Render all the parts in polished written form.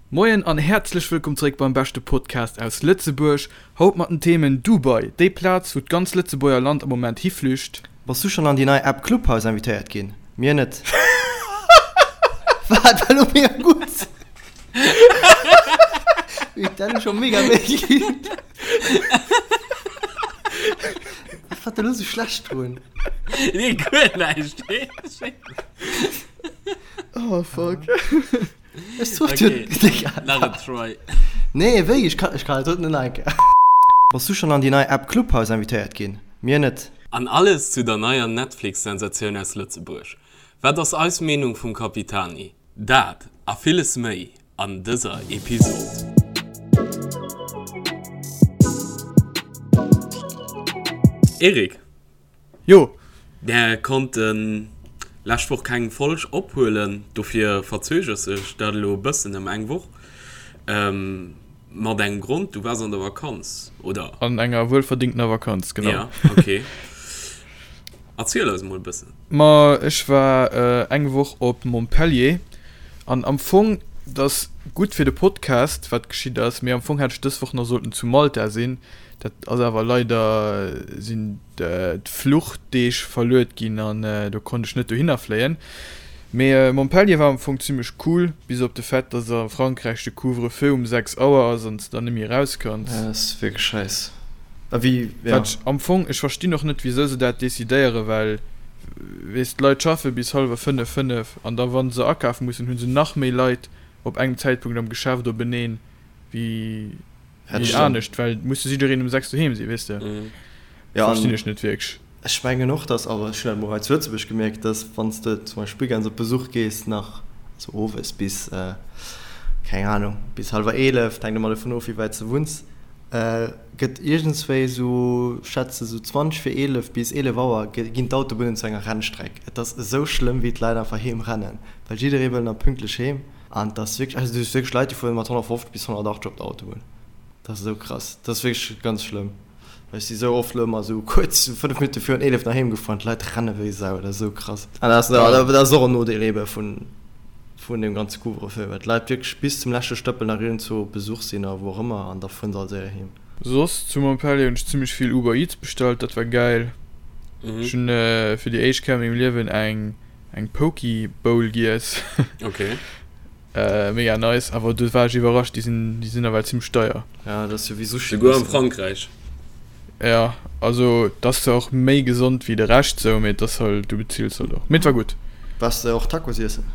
Moien an häerzlech wëllkomm zeréck beim beschte Podcast aus Lëtzebuerg. Haut mat den Themen, Dubai, déi Plaz wou d'ganz Lëtzebuerger Land am Moment hiflücht. Bass du schon an déi nei App Clubhouse invitéiert ginn? Mir net. Wat war lo mega gutt? Huet dat lo scho mega wéi ginn? Wat war da lo sou schlecht drun? Nee, guer näischt. Oh fuck. Ech sot Okay, jo, Digga. nach en Try. Nee, wéi? Ech kann, ech kann et net nach eng Kéier. Bass du schon an déi nei App Clubhouse invitéiert ginn? Mir net. An alles zu der neier Netflix-Sensatioun aus Lëtzebuerg. Wat ass eis Meenung vum Capitani? Dat a villes méi an dëser Episod. Eric. Jo. Mär konnten lescht Woch keng Folg ophuelen, dofir verzögert sech dat elo e bëssen ëm eng Woch. Mat engem Grond, du waars an der Vakanz, oder? An enger wuelverdingtener Vakanz, genau. Ja, okay. Erziel eis emol e bëssen. Ma ech war eng Woch op Montpellier an am Fong, dat ass gutt fir de Podcast, wat geschitt ass, mee am Fong hätt ech dës Woch nach sollten zu Malta sinn. Dat ass awer leider, sinn d'Fluchdeeg verluet ginn an do konnt ech net dohinner fléien. Mee Montpellier war am Fong zimmlech cool, bis op de Fait, dass a Frankräich de Couvre-feu um 6 Auer ass an s de dann net méi eraus kanns. Dat ass wierklech scheiss. A wéi, ja. Wat ech am Fong, ech verstinn och net wisou se dat decidéieren, well weess d'Leit schaffe bis hallwer 5, 5 an da wann se akafe mussen, hu se nach méi Leit op engem Zäitpunkt am Geschäft openeen wéi Dat Wéi anescht, well muss jo jiddereen um 6 doheem sinn, weess de. Ja, Verstinn ech net wierklech. Ech mengen och, dass, awer ech hunn dat mol hei zu Lëtzebuerg gemierkt, dass wann s de zum Beispill weekends op Besuch gees, nach, also owes bis, keng Ahnung, bis hallwer 11, et hänkt ëmmer dovun of, wéi wäit s de wunns, gëtt iergendswéi esou, ech schätze sou 20 vir 11 bis 11 Auer ginn d'Autobunnen zu enger Rennstreck. Et ass esou schlëmm, wéi d'Leit einfach heem rennen, well jidderee wëll nach pünktlech heem. An et ass wierklech, also du hues wierklech Leit, déi fueren mat 150 bis 180 op der Autobunn. Dat ass esou krass. Dat ass wierklech ganz schlëmm. Well ech si sou oft elo ëmmer esou kuerz, sou 5 Minutte virun 11 nach heem gefuer an d'Leit renne wéi Sau. Dat ass esou krass. An dat ass, dat ass och en Nodeel ebe vun, vun deem ganze Couvre-feu, well d'Leit wierklech bis zum leschte Stëppel nach iergendzwou op Besuch sinn a wou och ëmmer an da fueren se all séier heem. Soss zu Montpellier hunn ech zimmlech vill Uber Eats bestallt, dat war gäil. Ech hunn fir déi éischt Kéier a mengem Liewen eng eng Poke Bowl giess. Okay. Äh, mega nice, awer do war ech iwwerrascht, déi sinn, déi sinn nawell zimmlech deier. Ja, dat ass jo wéi Sushi. Souguer am Frankräich. Ja, also et ass zwar och méi gesond wéi de Rescht sou, mee et ass halt, du bezills halt och. Mee et war gutt. Waars de och Tacos iessen?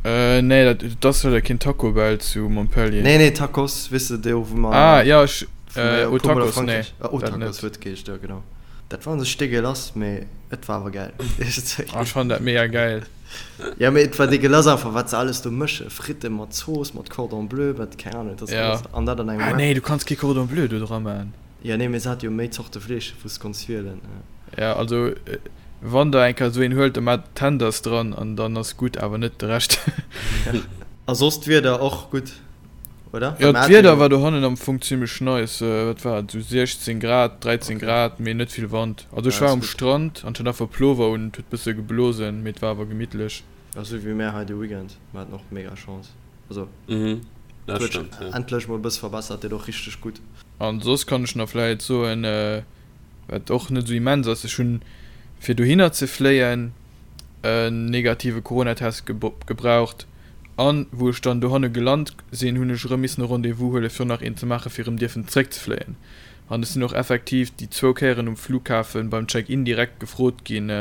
Äh, nee, dat, et ass leider keen Taco Bell zu Montpellier. Nee, nee, Tacos, weess de, do wou mer. Ah, ja, ech, wou mer äh, jo e oh, puer Mol a Tacos, nee, Frankräich, oh, dat Tacos net. huet geheescht, jo, genau. Dat war un sech dégueulasse, mee et war awer gäil. Ah, ech fannen dat mega gäil. Ja, mee et war dégueulasse einfach, wat se alles do mësche, Fritte mat Zooss, mat Cordon bleu, mat keng Ahnung, et ass Ja. alles, an dat an engem Ah Wrap. nee, du kanns kee Cordon bleu do dra man. Ja, nee, mee se hat jo méi Zorte Fleesch, wou s de konns wielen. Ja, also wann der eng Kéier esou een huelt, da maacht Tenders dran an dann ass gutt, awer net de Rescht. A soss d'Wieder och gutt? Oder? Jo, d'Wieder war dohannen am Fong zimmlech nice. Wat war et, sou 16 Grad, 13 Grad, mee net vill Wand. Also ech war um Strand an ech hat einfach Plover un, et huet bësse geblosen, mee et war awer gemittlech. Jo, sou wéi mär hei de Weekend. Mer haten och mega Chance. Also et huet sech endlech mol e bësse verbessert, deet och richteg gutt. An soss kann ech nach vläit soen, wat och net sou immens ass, ech hunn fir dohinner ze fléien en negative Coronatest gebraucht. An wou ech dann dohanne gelant sinn, hunn ech erëm missen e Rendez-vous huelen, fir nach een ze maachen, fir erëm dierfen zréckzefléien. An ech sinn och effektiv déi zwou Kéieren um Flughafen beim Check-in direkt gefrot ginn,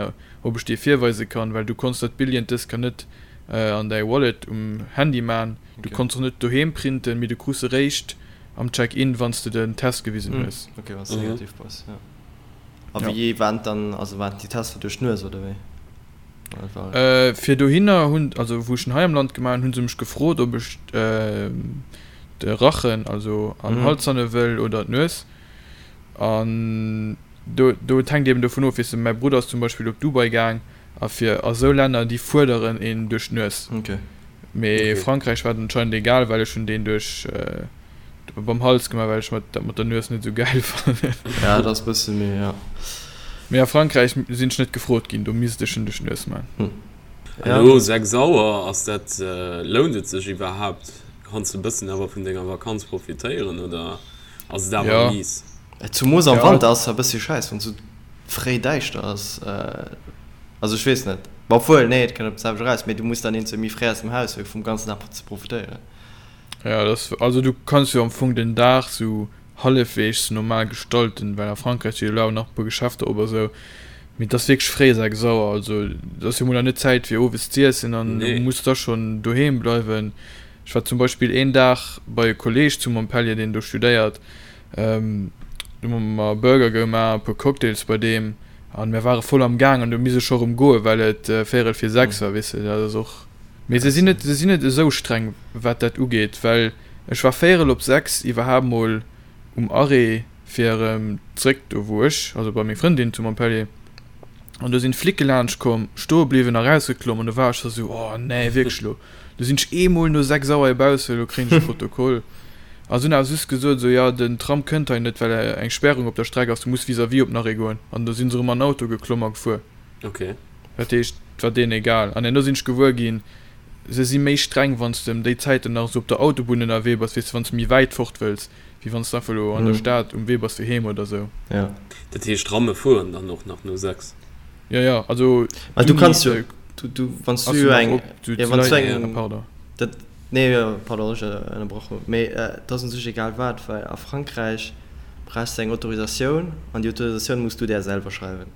ob ech dee virweise kann, well du konns dat Billjen dës Kéier net an däi Wallet um Handy man. Du konns och net doheem printen, mee du krus eréischt am Check-in, wann s de den Test gewisen hues. Ok, wann s de negativ bass, jo. A wéi waren dann, also waren déi Tester duerch d'Nues, oder wéi? Fir dohinner hunn, also wou ech en hei am Land gemaach hunn, hunn se mech gefrot, ob ech de Rachen, also an Hals hanne wëll oder d'Nues. An do, do, et hänkt eben dovun of, weess de, mäi Brudder ass zum Beispill op Dubai gaang a fir a sou Länner, déi fuerderen een duerch d'Nues. Mee Frankräich war et anscheinend egal, well ech hunn deen duerch Beim Hals gemaach, well ech mat dat mat der Nues net sou gäil fannen. Ja, dat ass bësse méi, ja. Mee a Frankräich sinn ech net gefrot ginn, do misst ech en duerch d'Nues man. Elo 6 Auer, ass dat, lount et sech iwwerhaapt? Kanns de e bëssen awer vun denger Vakanz profitéieren oder ass et awer mies? Zumoos am Wanter ass e bëssi schäiss wann sou fréi däischter ass. Also ech weess net, ma obwuel nee et kënnt op d'selwecht eraus, mee du muss dann eenzou méi fréi aus dem Haus fir vum ganzen Dag ze profitéieren. Ja dat ass, also du kanns jo am Fong den Dag sou hallefweegs normal gestalten, well a Frankräich si jo elo awer nach e puer Geschäfter op a sou, mee et ass wierklech fréi 6 Auer, also et ass jo mol nach net Zäit fir owes z'iessen an du muss da schonn doheem bleiwen. Ech war zum Beispill een Dag bei e Kolleeg zu Montpellier, deen do studéiert, do hu mer Burger gemaach, e puer Cocktails bei deem an mir ware voll am Gaang an du misst ech scho rëm goen, well et véierel vir 6 war, weess de, dat ass och. Mee se sinn net, se sinn net esou streng wat dat ugeet, well ech war véierel op 6 iwwerhaapt mol um Arrêt fir erëm zréck do wou ech, also bei meng Frëndin zu Montpellier, an do sinn d'Flicke laanscht komm, stoe bliwwen a rausgeklomm an do war ech scho sou, oh nee, wierklech elo? Do sinn ech eemol no 6 Auer hebausse, elo kréien ech e Protokoll. A se hunn awer just gesot esou, jo den Tram kënnt hei net, well eng Spärung op der Streck ass, du muss vis-à-vis op den Arrêt goen. An do sinn se erëm an den Auto geklomm a gefuer. Ok. Dat heescht, et war deenen egal. An herno sinn ech gewuer ginn, se si méi streng, wann s de ëm déi Zäiten nach esou op der Autobunn ënnerwee bass, weess de, wann s de méi wäit fort wëlls, wéi wann s de einfach elo an der Stad um Wee bass fir heem oder esou. Jo. Dat heescht, Tramme fueren dann och nach no 6? Jo, jo, also Well du kanns jo, du, du, wann s du jo eng, jo, wann s du eng, pardon. Dat, nee, jo, pardon, ech ënnerbrach hunn, mee et ass un sech egal wat, well a Frankräich brauchs de eng Autorisatioun an déi Autorisatioun muss du där selwer schreiwen.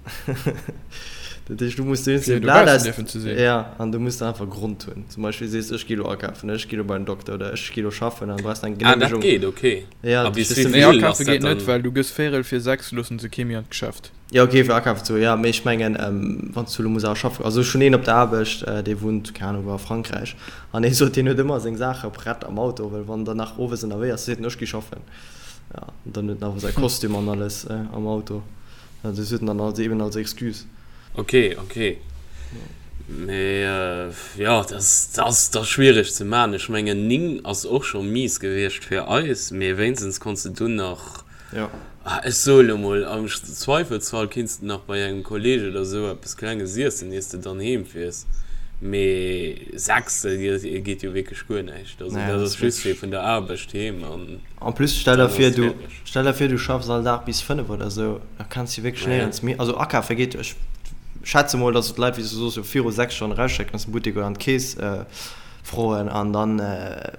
Dat heescht, du muss do Fir dobaussen dierfen ze sinn. Jo, an du muss dann einfach e Grond hunn. Zum Beispill sees, ech gi lo akafen, ech gi lo bei den Dokter oder ech gi lo schaffen, an du brauchs eng Ah, dat Geneemegung. geet, okay. Ja, A bis dat wéi Nee, vill ass akafe dat geet net, dann? well du gëss véierel vir 6 loossen se kee méi an d'Geschäft. Jo ok, fir akafen ze goen, jo, mee ech mengen wann s du elo muss awer schaffen, also ech hunn een op der Aarbecht, dee wunnt, keng Ahnung wou, a Frankräich, an dee sot, deen huet ëmmer seng Saache prett am Auto, well wann der nach owes ënnerwee ass, seet en, ech gi schaffen, jo, an dann huet en awer säi Kostüm an alles am Auto, dat huet en dann als eben als Excuse. Ok, ok, mee jo, dat ass da schwiereg ze maachen. Ech mengen 9 ass och scho mies gewiescht fir eis, mee wéinstens konns de dunn nach Jo. Ah, ech soe lo mol, am Zweifelsfall kinns de nach bei engem Kolleg oder sou eppes Klenges iessen, iers de dann heem fiers. Mee 6, dat geet jo wierklech guer näischt. Also Nee, dat dat ass ass just fir wierklech. vun der Aarbecht heem an En plus, stell der dann vir, ass du, fäerdeg. stell der vir, du schaffs all Dag bis 5 oder sou, da kanns du wierklech Naja. néierens méi, also akafe geet jo, ech schätze mol, dass et Leit, wéi s du soos, jo viru 6 schonn erausschécken aus dem Buttek oder an d'Keess froen an dann,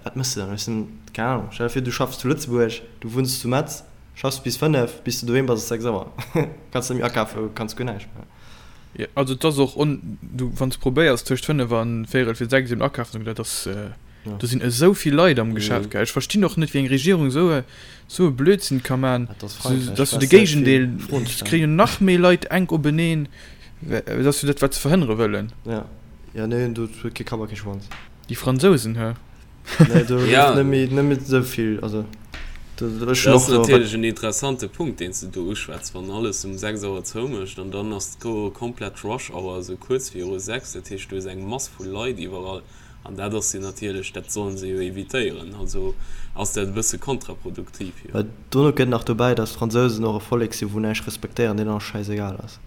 wat méchs de dann? Ech sinn, keng Ahnung, stell der vir, du schaffs zu Lëtzebuerg, Du wunns zu Metz, schaffs bis 5, bis du doheem bass ass 6 Auer. Kanns net méi akafen, kanns guer näischt méi. Jo, also et ass och on, du wann s probéiers tëscht 5 an véierel fir 6 eben akafen ze goen, dat ass, do sinn esou vill Leit am Geschäft, gell. Ech verstinn och net wéi eng Regierung esou e esou e Blödsinn ka man, Dat ass Frankräich, dass du de brauchs net vill Géigendeel, Froen et stellen. kréien nach méi Leit enk openeen, dat ass jo dat wat se verhënnere wëllen. Ja, ja nee, do huet kee Kapp a kee Schwanz. Déi Fransousen, hä? Nee, do Ja. gouf net méi, net méi esou vill. Also, do, ech Dat hunn ass och wat. natierlech en interessante Punkt, deen s de do uschwätz. Wann alles um 6 Auer zoumécht an dann ass do komplett Rush Hour, esou kuerz viru 6, dat heescht, du hues eng Mass vu Leit iwwerall an dat ass jo natierlech, dat solle se jo evitéieren. Also ass dat e bësse kontraproduktiv, jo. Well dono kënnt nach dobäi, datt d'Fransousen och e Vollek sinn, wou näischt respektéieren, deenen alles schäisegal ass.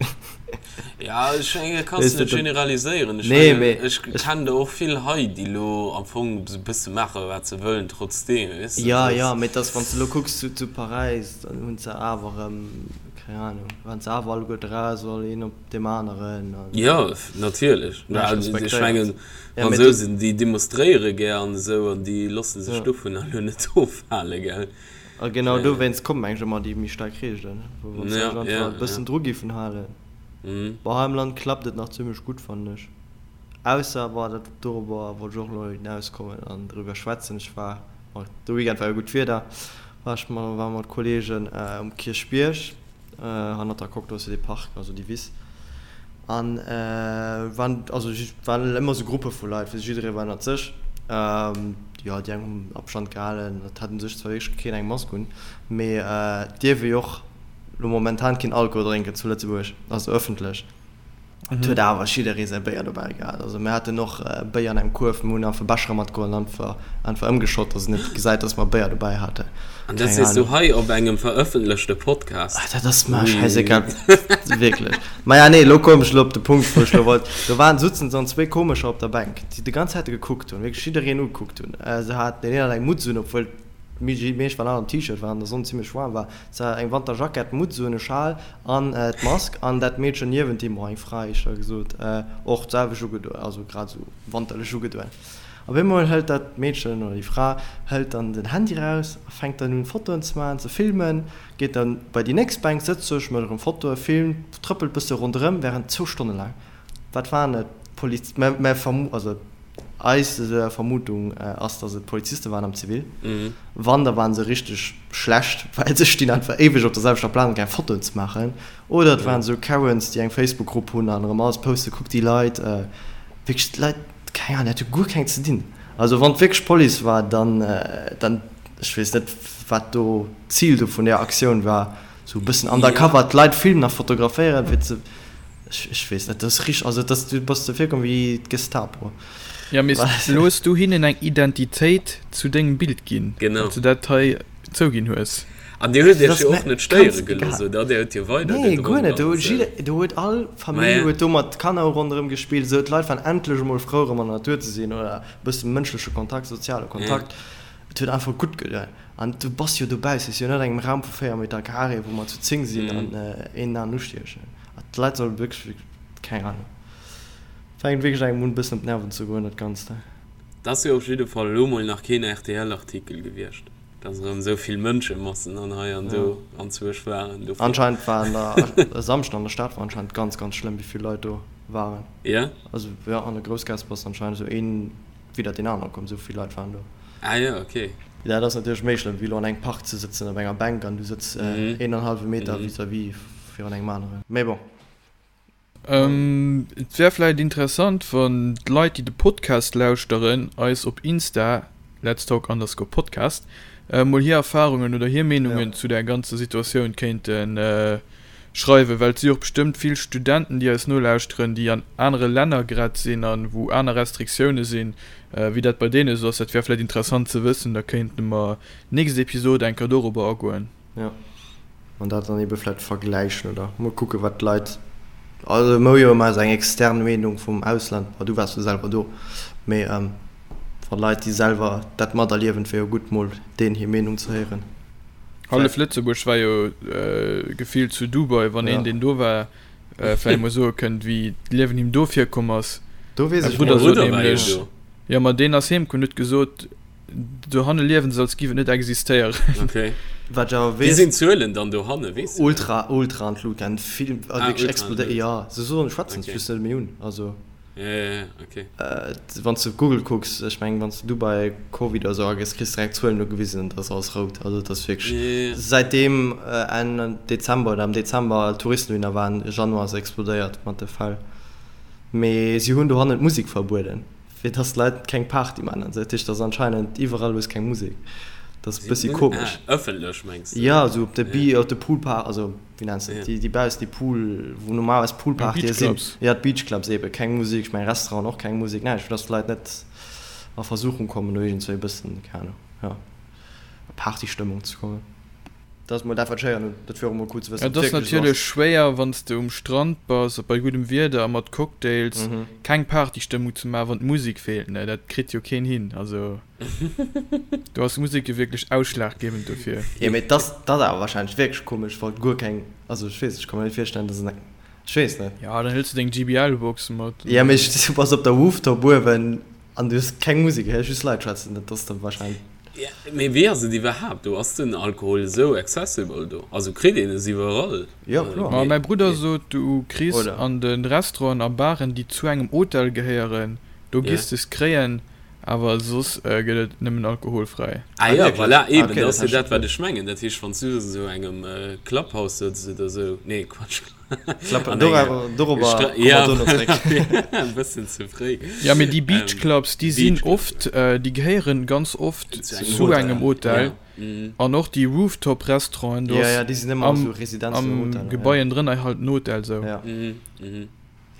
Ja, ech mengen, dat kanns Weess de de, net dat. generaliséieren. Ech Nee, mengen, mee ech ech. kennen der och vill hei, déi elo am Fong esou e bësse maache wat se wëllen trotzdeem, weess de. Ja, Dat ja, ass. mee et ass, wann s de elo kucks zu, zu Paräis, dann hunn se awer erëm, keng Ahnung, waren se awer alleguer draus, all een op deem aneren an. Jo, natierlech. Näischt Ech respektéiert. mengen, Ja, mee do. Fransousen, déi demonstréiere gär an esou an déi loosse sech Ja. dovunner elo net ofhale, gell. A genau dowéinst kommen mengen ech ëmmer déi méi staark Reegelen, wou wann se sech einfach e bëssen dru giffen halen. Bon, hei am Land klappt et nach zimmlech gutt, fannen ech. Ausser, bon, dat dorobber wollt ech och elo hinauskommen an driwwer schwätzen, ech war, bon, de Weekend war jo gutt Wieder, war ech ma war mat Kolleegen um Kierchbierg, hannert der Coque, do ass jo dee Park, also déi Wiss. An waren, also waren ëmmer sou Gruppe vu Leit, wéi jidderee war ënnert sech. Jo, déi eng hunn Abstand gehalen, et hat u sech zwar wierklech keen eng Mask un, mee et dierf ee jo och lo momentan keen Alkohol drénken zu Lëtzebuerg, also ëffentlech. Et huet awer jidderee säi Béier dobäi gehat. Also mir haten och Béier an engem Kuerf, mir hunn einfach Bechere matgeholl an einfach einfach ëmgeschott, dass et net gesäit, dass mer Béier dobäi haten. An dat sees du hei op engem verëffentlechte Podcast? Ah, dat ass mer schäisegal, wierklech. Maja, nee, elo koum ech elo op de Punkt, wou ech elo wollt. Do waren, sutzen dann zwéi Komescher op der Bänk, déi déi ganz Zäit gekuckt hunn, wierklech jiddereen ugekuckt hunn. Se haten, deen een hat eng Mutz un, obwuel d'Méi meescht waren all am T-Shirt, well an der Sonn zimmlech waarm war. Se hat eng Wanterjackett, Mutz un, e Schal an d'Mask an dat Meedchen niewent him, oh eng Fra éischter gesot, och d'selwecht ugedoen, also grad esou wanterlech ugedoen. Op eemol hëlt dat Meedchen oder déi Fra hëlt dann den Handy raus a fänkt dann un Fotoen ze maachen, ze filmen, geet dann bei déi nächst Bänk, sëtzt sech, mécht erëm Fotoen, filmt, trëppelt bësse ronderëm während zwou Stonne laang. Wat waren et? Poliz, mä mä vermu, also eis Vermutung ass, dass et Poliziste waren am Zivil. Wann, da waren se richteg schlecht, well se stinn einfach éiweg op der selwechter Plaz an keng Fotoen ze maachen. Oder et waren esou Karens, déi eng Facebook-Grupp hunn an erëm alles posten, kuck déi Leit, wierklech d'Leit, keng Ahnung, déi hate guer keng ze dinn. Also wann et wierklech d'Police war, dann, dann, ech weess net, wat do d'Zil do vun där Aktioun war, sou e bëssen undercover d'Leit filmen a fotograféieren, fir ze. Ech weess net, dat ass richteg, also dat du bass der virkomm wéi d'Gestapo. Ja, mee elo hues du hinnen eng Identitéit zu dengem Bild ginn, Genau. well s du dat hei zouginn hues. An dir huet iech jo och net stéiere gelooss, oder? Dir huet jo weider Nee, guer gedronk net. Do an huet esou. jidder, do huet all Famill Maja. huet do mat Kanner ronderëm gespillt, esou. D'Leit waren endlech emol frou erëm an der Natur ze sinn oder e bësse mënschleche Kontakt, soziale Kontakt. Et huet einfach gutt gedoen. An du bass jo dobaussen, et ass jo net an engem Raum vu 4 Meter Carré, wou mer zu 10 sinn an een en aneren ustiechen. D'Leit solle wierklech, keng Ahnung, fänkt wierklech engem un e bëssen op d'Nerven ze goen dat Ganzt. Et ass jo op jidde Fall elo mol nach keen RTL-Artikel gewiescht, dass erëm esou vill Mënschemassen an hei an do anzwousch waren. Dofir. Anscheinend war an der, e Samschden an der Stad war anscheinend ganz, ganz schlëmm, wéi vill Leit do waren. Jo? Also jo, an der Groussgaass bass anscheinend esou een widder deen anere komm, esou vill Leit waren do. Ah jo, ok. Dat ass natierlech méi schlëmm, wéi elo an engem Park ze sëtzen op enger Bänk an du sëtz een an hallwe Meter vis-à-vis virun engem aneren. Mee bon. Et wär vläit interessant, wann d'Leit, déi de Podcast lauschteren, eis op Insta, letstalk underscore podcast, mol hir Erfarungen oder hir Meenungen zu där ganzer Situatioun kéinte schreiwen, well et si och bestëmmt vill Studenten, déi eis nolauschteren, déi an anere Länner grad sinn a wou aner Restriktioune sinn, wéi dat bei deene esou ass. Dat wär vläit interessant ze wëssen, da kéinte mer nächst Episod eng Kéier dorobber agoen. Jo, an dat dann ebe vläit vergläichen oder mol kucken, wat d'Leit, also mer hu jo ëmmer esou eng extern Meenung vum Ausland, bon du waars jo selwer do, mee wa Leit, déi selwer dat materliewen, et wär jo gutt mol deenen hir Meenung ze héieren. Hallef Lëtzebuerg war jo gefillt zu Dubai, wann een deen do war vläicht mol soe kënnt wéi d'Liewen him do virkomm ass. Do weess ech Mäi Brudder net. sot nämlech, jo ma deen ass heem komm, huet gesot, dohanne liewen se als giff et net existéieren. Okay. Wat ech awer Wéi weess. sinn d'Zuelen dann dohanne, weess du dat? Ultra, ultra an d'Lut gaangen, vill, Ah, wierklech ultra an explodéiert, d'Lut. jo, se soen, schwätzen Okay. just net méi un, also. Ja, ja, ja, okay. Wann s de op Google kucks, ech mengen, wann s de Dubai Covid oder sou agëss, kriss de direkt Zuelen ugewisen, dat ass alles rout. Also et ass wierklech, Ja, ja, ja. säitdeem Enn Dezember oder am Dezember Touristen dohinner waren, Januar ass explodéiert mat de Fäll. Mee si hunn dohannen d'Musek verbueden, fir dass d'Leit keng Party maachen an sou. Dat heescht, et ass anscheinend iwwerall hues keng Musek. Dat ass e bëssi komesch. Ah, ëffentlech mengs de? Jo, sou op de Ja. Bi-, op de Poolpar-, also. Wéi nenns de déi, déi baussen, déi Pool, wou normalerweis Poolpartye sinn? Beachclubs. Ja, d'Beachclubs eben. Keng Musek, ech mengen Restauranten och keng Musek, näischt, fir dass d'Leit net a Versuchung kommen, do iergendzwéi e bëssen, keng Ahnung, jo, a Partystëmmung ze kommen. Dat ass mol dat, wat ech héieren hunn. Dat wier och emol cool ze wëssen, Et ob et ass wierklech esou natierlech ass. schwéier, wann s de um Strand bass a bei guddem Wieder a mat Cocktails, keng Partystëmmung ze maachen, wann d'Musek feelt, ne? Dat kritt jo keen hin, also. Do ass d'Musek jo wierklech ausschlaggebend dofir. Jo, mee dat ass awer wahrscheinlech wierklech komesch, wa guer keng, also ech weess, ech ka mer net virstellen, dass en, ech weess net. Jo, dann hëls du deng JBL-Box mat. Jo, mee du bass op der Rooftop uewen an du hues keng Musek, héiers just Leit schwätzen, dat ass da wahrscheinlech. Jo, mee wéi ass et iwwerhaapt do? Ass den Alkohol esou accessible do? Also kritt een es iwwerall? Jo, kloer. Ma mäi Brudder sot, du kriss an de Restauranten a Baren, déi zu engem Hotel gehéieren, do giss de es kréien. Awer soss gëtt et nëmmen alkoholfräi. Ah jo, wierklech? voilà, Ah, eben, okay, dat dat ass jo hat dat, ech wat ech mengen. Dat heescht, wann s du an esou engem Clubhouse sëtz oder esou, nee, Quatsch, Klapp, an enger dorauer, dorobber Stra komme mer ja, dono voilà, zréck. e bëssen ze fréi. Ja, mee déi Ähm, Beachclubs, déi sinn Beachclubs, oft, déi gehéieren ganz oft zu engem zu Hotel, engem Hotel. ja, mhm. An och déi Rooftop-Restauranten, do Ja, ass ja, déi sinn ëmmer am, esou Residenzen oder am Hoteller, ja. Gebaien drënner halt en Hotel, sou. Ja. Mhm, mhm.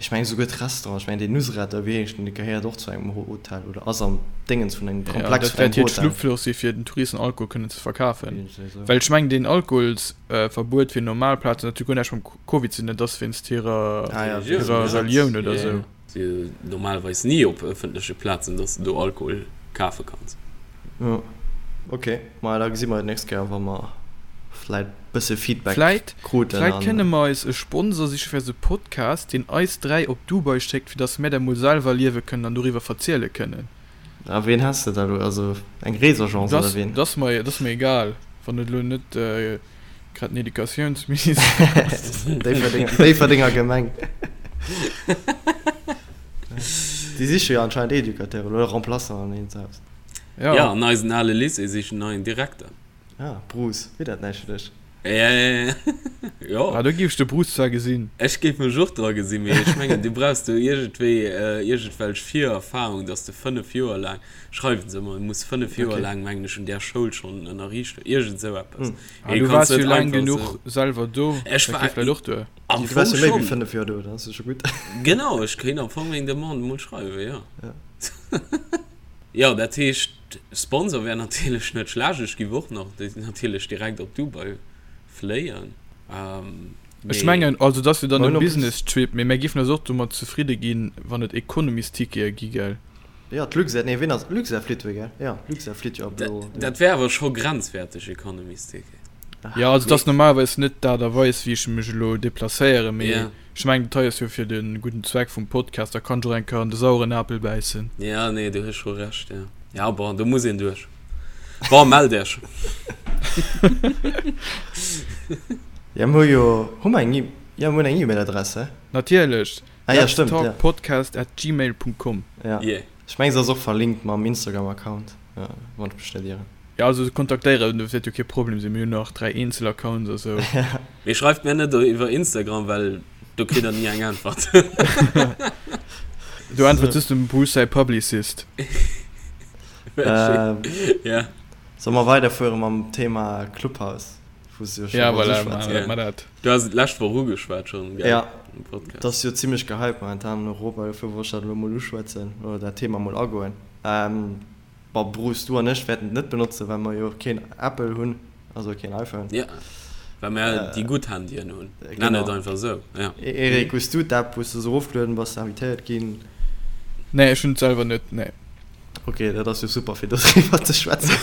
Ech mengen esouguer d'Restaurant, ech mengen deen Nusret da wéi heescht deen, dee gehéiert och zu engem Hotel oder ass am Déngens vun engem Ja, Komplex dat vun wäert engem hiert Hotel. Schlupfloch si fir den Touristen Alkohol kënnen ze verkafen. Iergendwéi esou. Well ech mengen deen Alkoholsverbuet fir normal Plazen, dat huet guer näischt mam Covid ze dinn, dat ass wéinst hirer Ah ja, Religioun, hirer ja. Relioun oder Ja, esou. ja. Si jo normalerweis ni op ëffentleche Plazen, dass de do Alkohol kafe kanns. Jo, ok. Maja, da gesi mer et nächst Kéier, wa mer vläit bësse Feedback Vläit, kruten vläit an. kënne mer eis e Sponsor siche fir eise Podcast, deen eis 3 op Dubai schéckt, fir dass mär dat mol selwer erliewe kënnen an doriwwer verziele kënnen. A ween häss de da elo? Also eng Reesagence oder Dat, ween? dat ass mer, dat ass mer egal, wann et elo net grad den Educatiounsminister ass. Déifferdeng, Déifferdenger Gemeng. Déi siche jo anscheinend Educateuren oder Remplaçanten an eent Haus. Ja, Ja. an eisen ale Lycée sichen neien Direkter. Ah, Bruce, wier dat näischt fir dech? Ja, ja, ja. Jo. Ah, do géif ech de Bruce zwar gesinn. Ech géif mech och dra gesinn, mee ech mengen, du brauchs do iergendwéi iergendwelch Virerfahrung, dass de 5 Joer laang, schreiwen se ëmmer, du muss 5 Joer Okay. laang, mengen ech, un där Schoul schonn ënnerriicht hunn, iergend esou eppes. Hm. Ah, Mee du du kanns waars jo net laang einfach genuch esou. selwer do, Ech dat war geet vläicht och duer. am Du waars Fong jo méi wéi schonn. 5 Joer do, dann ass et scho gutt. Genau, ech kéint am Fong meng Demande mol schreiwen, jo. Ja. Jo, dat heescht, Sponsor wär natierlech net schlecht. Ech giff och nach natierlech direkt op Dubai fléien. Ech Mee. mengen, also et ass jo dann Mer e hunn en plus. Business-Trip, mee mär giffen eis och domat zefridde ginn, wann et Economy's-Tickete gi, gell? Jo, d'Luxair, nee, ween ass, Luxair flitt jo, gell? Jo, Luxair flitt jo ab elo. Dat wär awer scho grenzwäerteg, Economy's-Ticket. Jo, also et ass Mee. normalerweis net d'Aart a Weis, wéi ech mech elo deplacéieren, mee Ja. ech mengen, dat hei ass jo fir de gudden Zweck vum Podcast, da kann ech och eng Kéier an de saueren Apel bäissen. Ja, nee, du hues scho Recht, ja. Ja, bon, do muss een duerch. Bon, mellt Iech. Ja, mir hu jo, hu mer eng E, jo, mir hunn eng E-Mail-Adress, he? Natierlech, Ah ja, stëmmt, ja. letstalkpodcast at gmail punkt com. Ja. Yeah. Ech mengen, se ass och verlinkt mam Instagram-Account, ja, wann ech mech net ieren. Ja, also kontaktéieren, dat wäert jo kee Problem sinn, mir hunn nach 3 eenzel Accounts a sou. Mee schreift mir net iwwer Instagram, well do kritt der ni eng Äntwert. Do äntwert just dem Bruce säi Publicist. Ja. Solle mer weiderfuere mam Thema Clubhouse, wou s du jo scho Ja, wolls voilà, uschwätzen? maache mer dat. Du has et d'lescht Woch ugeschwat schonn, gell? Ja, Am Podcast. dat ass jo zimmlech gehypt momentan an Europa, dofir wollt ech dat elo mol uschwätzen oder dat Thema mol agoen. Bon, Bruce, du an ech wäerten et net benotzen, well mer jo keen Apple hunn, also keen iPhone. Ja, well mer déi gutt Handyen hunn. Nenn et einfach esou, ja. Eric, hues du d'App, hues du se erofgelueden, bass de invitéiert ginn? Nee, ech hunn et selwer net, nee. Ok, dat ass jo super, fir doriwwer ze schwätzen.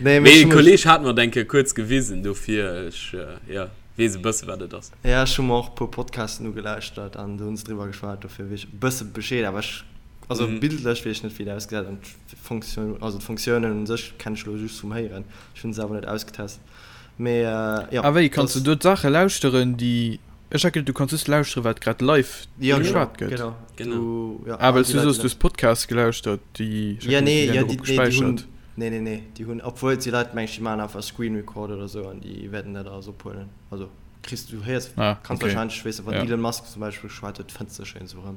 Nee, mee e Kolleg hat mer et eng Kéier kuerz gewisen, dofir ech, jo, weess e bësse wat et ass. Ja, ech hu mer och e puer Podcasten ugelauschtert an do hunn se driwwer geschwat, dofir weess ech e bësse Bescheed, awer ech Also bildlech weess ech net wéi dat ausgesäit an d'Fonction, also d'Fonctiounen un sech kennen ech elo just vum Héieren, ech hunn se awer net ausgetest. Mee jo, Ah wéi, kanns dass. de do d'Saache lauschteren déi, ech hat geduet du kanns just lauschteren wat grad live Jo genau, geschwat gëtt. genau, Genau. du, jo, Ah all well s déi du Leit soos déi du hues Podcasts gelauschtert déi, ech Ja hat geduet déi nee, wären ja dorop déi, nee déi hunn, gespäichert. nee nee nee, déi hunn, obwuel et si Leit meng ech déi maachen einfach Screen Record oder sou an déi wäerten dat alles ophuelen, also kriss du héiers, Ah kanns okay, wahrscheinlech, weess de wann ja. Elon Musk zum Beispill geschwat huet, fënns de schéin sou erëm.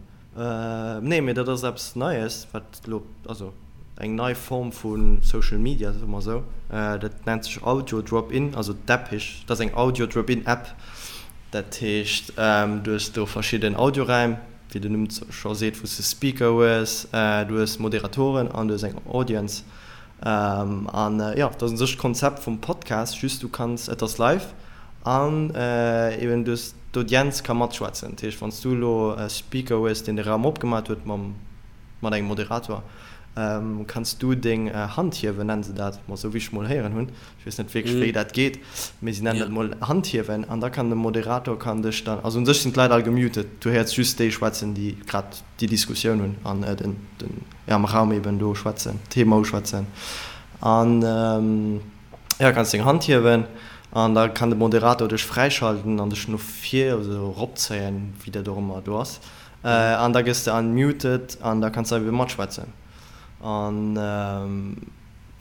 Nee, mee dat ass eppes Neies, wat elo, also eng nei Form vu Social Media, soe mer esou. Dat nennt sech Audio Drop-In, also d'App heescht, dat ass eng Audio Drop-In App. Dat heescht, du hues do verschidden Audioräim, wéi den Numm scho seet, wou s de Speaker hues, du hues Moderatoren an du hues eng Audience. An jo, dat ass u sech d'Konzept vum Podcast, just du kanns, et ass live an eben du hues, d'Audienz ka matschwätzen. Dat heescht, wann s du elo e Speaker hues, deen de Raum opgemat huet mam, mat engem Moderator, kanns du deng Hand hiewen, nennen se dat mol esou, wéi ech mol héieren hunn. Ech weess net wierklech, wéi dat geet, mee si nennen dat mol Hand hiewen. An da kann de Moderator kann dech dann, also u sech sinn d'Leit all gemutet, du héiers just déi schwätzen, déi grad déi Diskussioun hunn an den, den, jo am Raum eben do schwätzen, d'Thema uschwätzen an jo kanns deng Hand hiewen an da kann de Moderator dech fräischalten an dech no vir also eropzéien, wéi dat och ëmmer do ass an da gëss de unmuted an da kanns de ebe matschwätzen an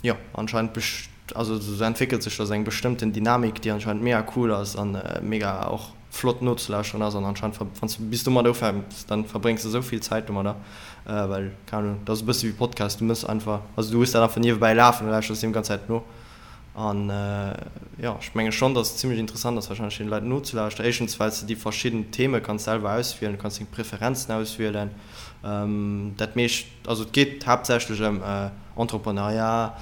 jo anscheinend also sou entwéckelt sech da sou eng bestëmmten Dynamik déi anscheinend mega cool ass an mega och flott nozelauschteren ass an anscheinend ver wann s de bis domat ufänks, dann verbréngs de esou vill Zäit domadder, well, keng Ahnung, dat ass e bësse wéi Podcast, du mëss einfach, also du hues dat einfach niewebäi lafen, du lauschters deem ganz Zäit no. An jo, ech menge schonn, datt et zimmlech interessant ass warscheinlech deene Leit nozelauschteren. Éischtens well s de déi verschidden Theme kanns selwer auswielen, du kanns deng Preferenzen auswielen. Dat meescht, also et geet haaptsächlech ëm Entrepreneuriat,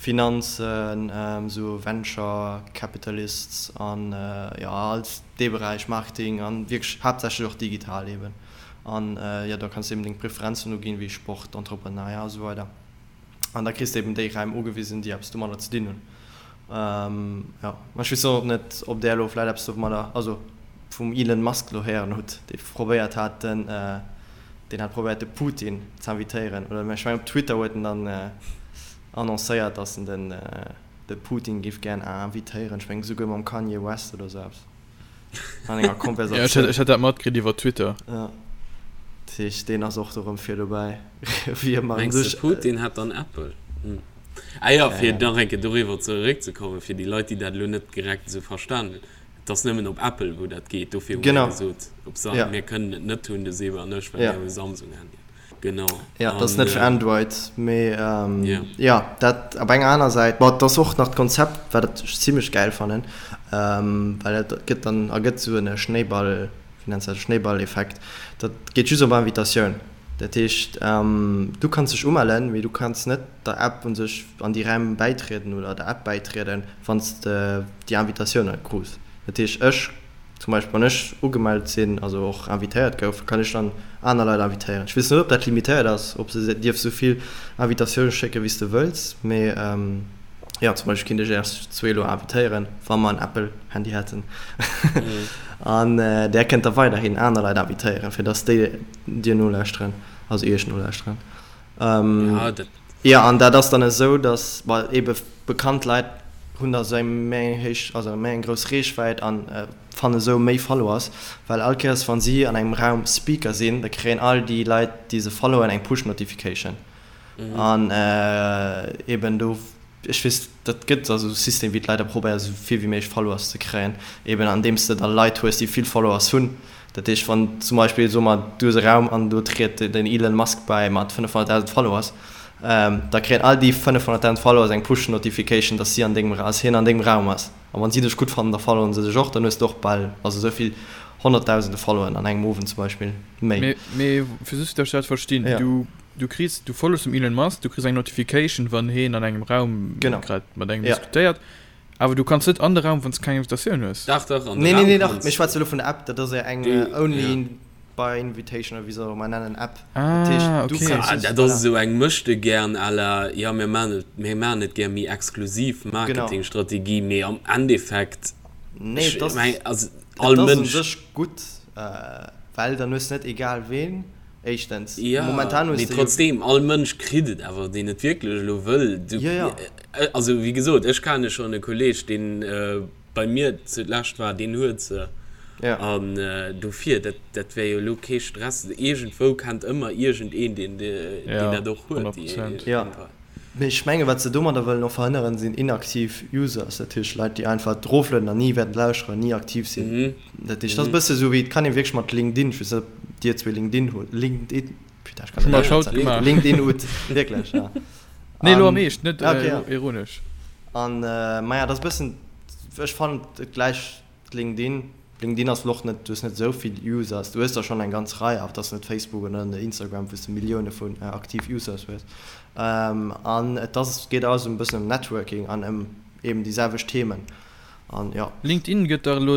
Finanzen, esou Venture Capitalists an jo all dee Beräich, Marketing an wierklech haaptsächlech och digital eben. An jo, da kanns de eben deng Preferenzen uginn, wéi Sport, Entrepreneuriat a sou weider. An da kriss de eben déi Räim ugewisen, déi eppes domadder ze dinn hunn. Jo, ma ech weess och net, ob där elo vläicht eppes domadder, also vum Elon Musk elo héieren hutt, dee probéiert hat, den, deen hat probéiert de Putin z'invitéieren, oder ech mengen op Twitter huet en dann annoncéiert, datt en den, de Putin géif gären invitéieren, ech mengen esouguer mam Kanye West oder esou eppes. An enger Konversatioun. Ja, ech hat dat matkritt iwwer Twitter. Ja. Dat heescht, deen ass och do rëm vir dobäi, wéi ëmmer. Mengs de, Putin hätt dann Apple? Hm. Ah jo, fir nach eng Kéier doriwwer zeréckzekommen, fir déi Leit, déi dat elo net direkt esou verstan hunn, Et ass nëmmen op Apple, wou dat geet. Dofir hu mir gesot, op Sam, mir kënnen et net hunn, de Seba an ech, well mir hu Samsung-Handyen. Genau. Ja, dat ass net fir Android, mee jo, dat op enger aner Säit. Bon, et ass och nach d'Konzept, wat ech zimlech gäil fannen, well et gëtt dann, ergëtt esou en Schnéiball, wéi nenns de dat, Schnéiballeffekt. Dat geet just op Invitatioun. Dat heescht, du kanns dech umellen, mee du kanns net der App u sech an déi Räim bäitrieden oder der App bäitrieden, wann s de déi Invitatioun net krus. Dat heescht, ech Zum Beispill wann ech ugemellt sinn, also och invitéiert gouf, kann ech dann aner Leit invitéieren. Ech weess net, ob dat limitéiert ass, ob s de dierfs esou vill Invitatioune schécken, wéi s de wëlls, mee jo, zum Beispill kinnt ech Iech zwee elo invitéieren, wa mer en Apple-Handy hätten. An där kënnt da weiderhin aner Leit invitéieren, fir dass déi dir nolauschteren, also Iech nolauschteren. Jo, an dat ass dann esou, datt, well eebe bekannt Leit hunn da sou eng méi eng héich, also méi eng grouss Reechwäit a fanne sou méi Followers, well all Kéiers wa si an engem Raum Speaker sinn, da kréien all déi Leit, déi se followen, eng Push-Notification. An eeben do, ech weess, dat gëtt also esou System, wéi d'Leit da probéieren, esou vill wéi méiglech Followers ze kréien, eeben andeems de da Leit hues, déi vill Followers hunn. Dat heescht, wann zum Beispill, soe mer, du hues e Raum an do triet den Elon Musk bäi mat 500.000 Followers, da kréien all déi 500.000 Followers eng Push-Notification, dass si an dengem, dass hien an dengem Raum ass. A wann si dech gutt fannen, da followen se dech och, dann hues de och bal, also esou vill Honnertdausende Followen an engem Owend zum Beispill méi. Mee, mee fir just, dass ech dat verstinn, du, du kriss, du follows dem Elon Musk, du kriss eng Notification, wann hien an engem Raum grad mat engem diskutéiert. Awer du kanns net an de Raum wanns de keng Invitatioun hues. Dach dach an de Nee, nee, Raum nee, dach, kanns. mir schwätze elo vun der App, dat ass jo eng Du, only ja. by invitation oder wéi se och ëmmer nennen App. Dat heescht, Ah, du okay. kanns Ah, just, dat ass voilà. esou eng Möchtegern à la, jo mir maachen et, mir maachen et gär méi exklusiv Genau. Marketingstrategie, mee am Endeffekt, Nee, ech et ass, meng, also et all ass u Mënsch. sech gutt, well dann hues de net egal ween, éischtens. Jo, Momentan hues mee de jo. trotzdem, all Mënsch kritt et awer, deen et wierklech elo wëll. Du, Jo, jo. Also wéi gesot, ech kenne schonn e Kolleeg, deen bei mir zulescht war, deen huet se. Ja. An dofir, dat, dat wär jo elo kee Stress. Iergendwou kennt ëmmer iergendeen, deen, deen Ja, dat och huet, 100 déi Prozent. Ja. Mee ech menge wat se domadder wëllen och verhënneren, sinn inaktiv Users, dat heescht Leit, déi einfach eroflueden an ni wäerten lauschteren, ni aktiv sinn. Mhm. Dat heescht, dat ass e bësse sou wéi, et kann ee wierklech mat LinkedIn, ech weess net, ob dir zwee LinkedIn hutt, LinkedIn, putain, ech kann Hu net mer haut schwätzen, gemaach. LinkedIn hutt, wierklech, ja. Nee, elo am An, Eescht, net ah, okay, ja. ironesch. An, maja, dat ass e bëssen, ech fannen et gläicht LinkedIn. LinkedIn ass elo och net, du hues net esou vill Users, du hues der schonn eng ganz Rei, awer et ass net Facebook oder Instagram, wou s de Millioune vun aktiv Users hues. An et ass, geet alles e bëssen ëm Networking an ëm eben déi selwecht Themen. An jo. LinkedIn gëtt dach elo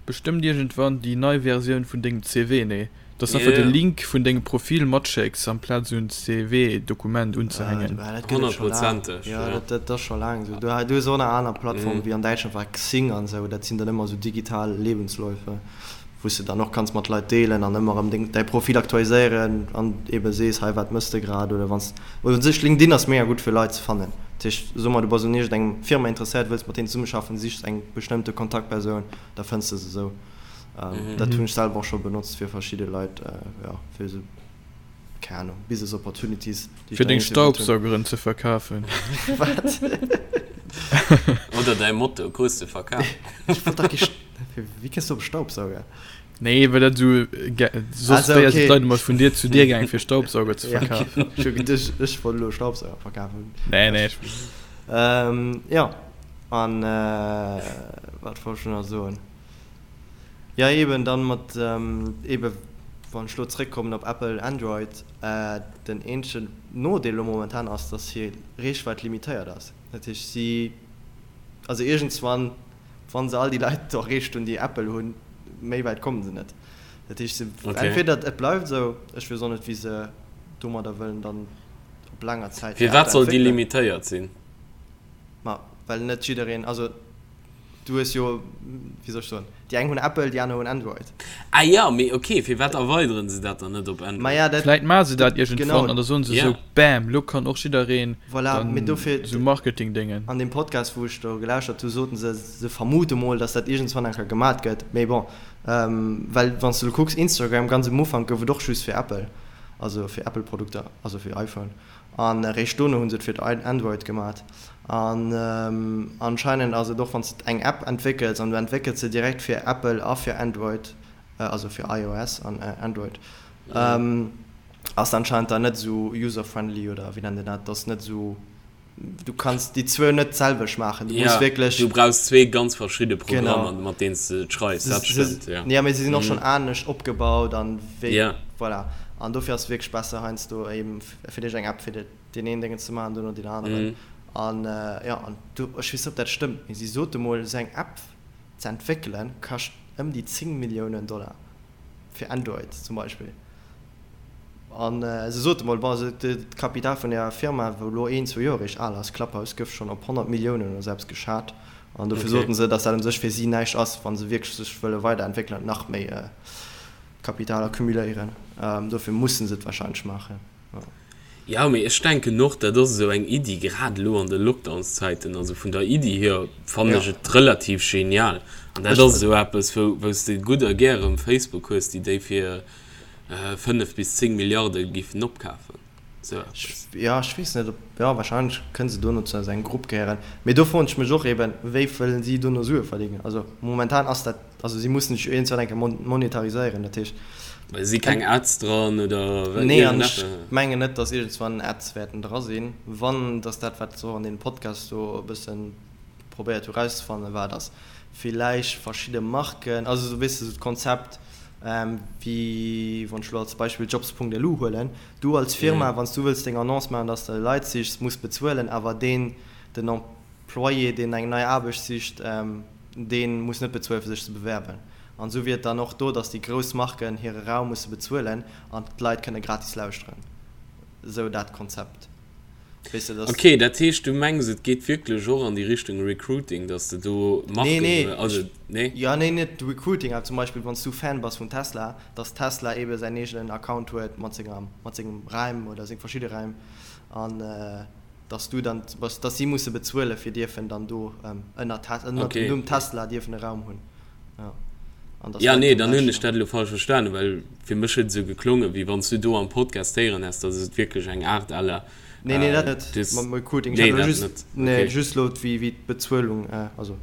bestëmmt iergendwann déi nei Versioun vun dengem CV, nee? Dass de einfach de Link vun dengem Profil matschécks amplaz esou en CV-Dokument unzehängen. Dat gëtt et scho laang. Jo, dat ass scho laang esou. Du hues och nach aner Plattformen, wéi an Däitschland war Xing an esou. Dat sinn dann ëmmer esou digital Lebensläufe, wou s de dann och kanns mat Leit deelen an ëmmer erëm deng, däi Profil aktualiséieren an ebe sees, hei wat mëss de grad oder wann s, oder u sech LinkedIn ass mega gutt fir Leit ze fannen. Dat heescht, so mer du bass un iergendengem Firma interesséiert, wëlls mat deenen zesummeschaffen, sichs eng bestëmmte Kontaktpersoun, da fënns de se esou. Dat hunn ech selwer och scho benotzt fir verschidde Leit, jo, fir esou, keng Ahnung, Business Opportunities, déi ech Fir dann deng iergendwéi wollt hunn. Staubsaugeren ze verkafen. Wat? Oder däi Moto krus de verkaf. Ech wollt dach kee St. Wéi kënns du op Staubsauger? Nee, well dat esou soss Also, wéi okay. d'Leit ëmmer vun Dier zu Dier gaang fir Staubsauger ze Ja, verkafen. ech hu geduecht, ech wollt elo Staubsauger verkafen. Nee, nee. Jo, an wat wollt ech elo nach soen? Jo, eben dann mat, eben wann ech elo zréckkommen op Apple, Android, den eenzegen Nodeel elo momentan ass, dass hir Reechwäit limitéiert ass. Dat heescht, si, also iergendswann, wa se all déi Leit erreecht hunn, déi Apple hunn, méi wäit komme se net. Dat heescht, se, entweder et bleift esou, ech weess och net, wéi se domadder wëllen dann op laanger Zäit hir App Firwat soll déi entwéckelen. limitéiert sinn? Ma well net jiddereen, also du hues jo, wéi soll ech soen, déi eng hunn Apple, déi aner hunn Android. Ah jo, mee ok, firwat erweideren se dat dann net op Android? Maja, dat, Vläit maache se dat iergendwann genau. an da soen se esou, Bam, lo kann och jiddereen Voilà, dann mee dofir, esou Marketing-Déngen. An deem Podcast, wou ech do gelauschtert hu, soten se, se vermute mol, datt dat iergendswann eng Kéier gemat gëtt. Mee bon, well wann s de elo kucks, Instagram, ganz um Ufank gouf et och just fir Apple, also fir Apple-Produkter, also fir iPhone. An eréischt dono hu se et fir Android gemat. An anscheinend ass et och, wann s de eng App entwéckels an du entwéckels se direkt fir Apple a fir Android, also fir iOS an Android, ass anscheinend dann net esou user-friendly oder wéi nennt een dat, dass net esou, du kanns déi zwou net d'selwecht maachen, du muss wierklech. Du brauchs zwee ganz verschidde Programmer, mat deenen s de et schreifs, dat stëmmt, jo. Jo, mee se sinn och schonn anescht opgebaut an wéi, voilà. An dofir ass et wierklech besser heiansdo eben fir dech eng App fir deen een Déngen ze maachen, duerno deen aneren. An jo, an du, ech weess net, ob dat stëmmt, mee si sote mol, esou eng App ze entwéckelen, kascht ëm déi 10 Milliounen Dollar, fir Android zum Beispill. An se sote mol, bon, also d'Kapital vun där Firma, wou elo een, zwou Joer eréischt al ass, Clubhouse, gouf schonn op 100 Milliounen oder sou eppes geschat. An dofir soten se, datt dat u sech fir si näischt ass, wa se wierklech sech wëlle weiderentwéckelen an nach méi Kapital accumuléieren. Dofir musse se et warscheinlech maachen. Jo, mee ech denken och, dat ass esou eng Iddi, grad elo an de Lockdownszäiten, also vun der Iddi hier fannen ech et relativ genial. An dat ass esou eppes, wou, wou s de gutt a gär erëm Facebook hues, déi déi fir 5 bis 10 Milliarde giffen opkafen. Esou eppes. Jo, ech weess net, ob, jo, warscheinlech kënne se dono zu engem Grupp gehéieren. Mee do froen ech mech och eben, wéi wëllen si dono Sue verdéngen? Also momentan ass dat Also si mussen sech iergendwann eng Kéier monetariséieren, dat heescht. Well si keng Ads dran oder Nee, an ech mengen net, datt iergendswann Ads wäerten dra sinn. Wann, datt dat, wat se och an deem Podcast do e bësse probéiert hu rauszefannen, war, datt villäicht verschidde Marken, also esou, weess de, esou d'Konzept wéi wann ech elo als Beispill Jobs.lu huelen, du als Firma, wann s du wëlls deng Annonce maachen, datt s de Leit sichs, muss bezuelen, awer deen, den Employé, deen eng nei Aarbecht sicht, Dee muss net bezuelen, fir sech ze bewerben. An esou wier et dann och do, datt déi grouss Marken hire Raum musse bezuelen an d'Leit kënne gratis lauschteren. Esou dat Konzept. Weess de, datt. Ok, dat heescht, du mengs, et geet wierklech och an déi Richtung Recruiting, datt de do Marken. Nee, nee, also, nee? Jo, nee, net Recruiting, awer zum Beispill, wann s du Fan bass vun Tesla, datt Tesla eebe säin eegenen Account huet mat senger, mat sengem Raim oder seng verschidde Raim an. dass du dann, dass si musse bezuelen, fir dierfen dann do ënner ënner dem Numm Tesla dierfen e Raum hunn. Ja. An dass Ja, nee, dann hunn ech dat elo falsch verstanen, well fir mech huet et esou geklongen, wéi wann s du do am Podcast héieren häss, dass et wierklech eng Aart à la. Nee, nee, dat net, mam Recruiting. Ech hat elo just, nee, just elo wéi d'Bezuelung, also.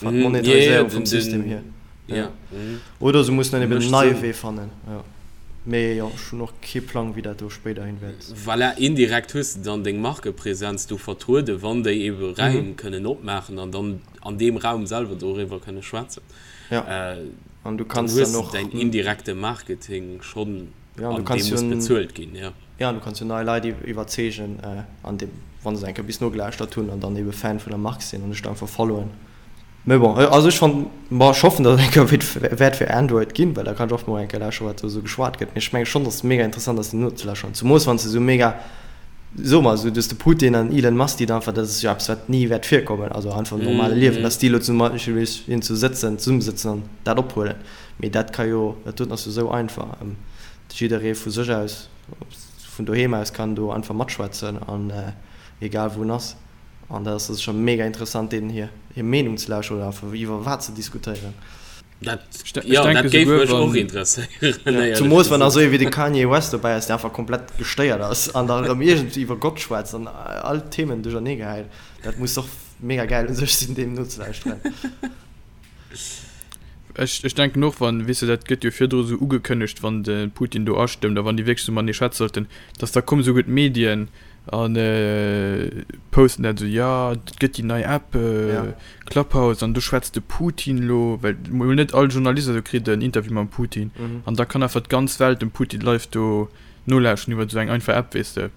D'Monetariséierung vum System hier. Ja. Oder se mussen dann eben en neie Wee fannen. Ja. Mee jo, ech hunn och kee Plang, wéi dat do spéiderhin wäert. Voilà, indirekt hues de dann deng Markepresenz do vertrueden, wann déi ebe Räim kënnen opmaachen an dann an deem Raum selwer doriwwer kënne schwätzen. Ja. An du kanns dann och. Dann hues de däin indirekte Marketing schonn, an dee muss bezuelt ginn, ja. Ja, an du kanns jo nei Leit iwwerzeegen, an deem, wa se eng Kéier bis nogelauschtert hunn an dann ebe Fan vun der Mark sinn an dech da einfach followen. Mee bon, also ech fannen, bon, ech hoffen, datt et eng Kéier wäert fir Android ginn, well da kann ech och mol eng Kéier lauschteren, wat do esou geschwat gëtt. Mee ech menge schonn, datt et mega interessant ass, deem nozelauschteren, zemoos wann s de esou mega, soe mer esou, du hues de Putin an Elon Musk, déi da einfach, dat ass jo eppes, wat ni wäert virkommen, also einfach am normale Liewen, datt déi elo zum Beispill iergendwou sëtzen, zesummesëtzen an dat ophuelen. Mee dat ka jo, dat doten ass jo esou einfach. Jidderee vu sech aus, vun doheem aus kann do einfach matschwätzen an egal wou en ass. An dat ass sécher mega interessant deenen hir hir Meenung ze lauschteren oder einfach iwwer wat ze diskutéieren. Dat, jo, dat géif mech och interesséieren, éierlech Zumoos wann da gesot. esou ee wéi de Kanye West dobäi ass, dee einfach komplett gestéiert ass an da erëm iergendwéi iwwer Gott schwätzt an all d'Themen duerchernee gehäit. Dat muss och mega gäil u sech sinn, deem nozelauschteren. Ech, ech denken och, wann, weess de, dat gëtt jo virdru esou ugekënnegt, wann de Putin do astëmmt a wann déi wierklech esou matenee schwätze sollten, datt da kommen esouguer d'Medien. An posten dat esou, jo et gëtt déi nei App Clubhouse an do schwätzt de Putin elo, well mol net all Journalist esou kritt en Interview mam Putin an da kann einfach d'ganz Welt dem Putin live do nolauschten iwwer esou eng einfach App, weess de.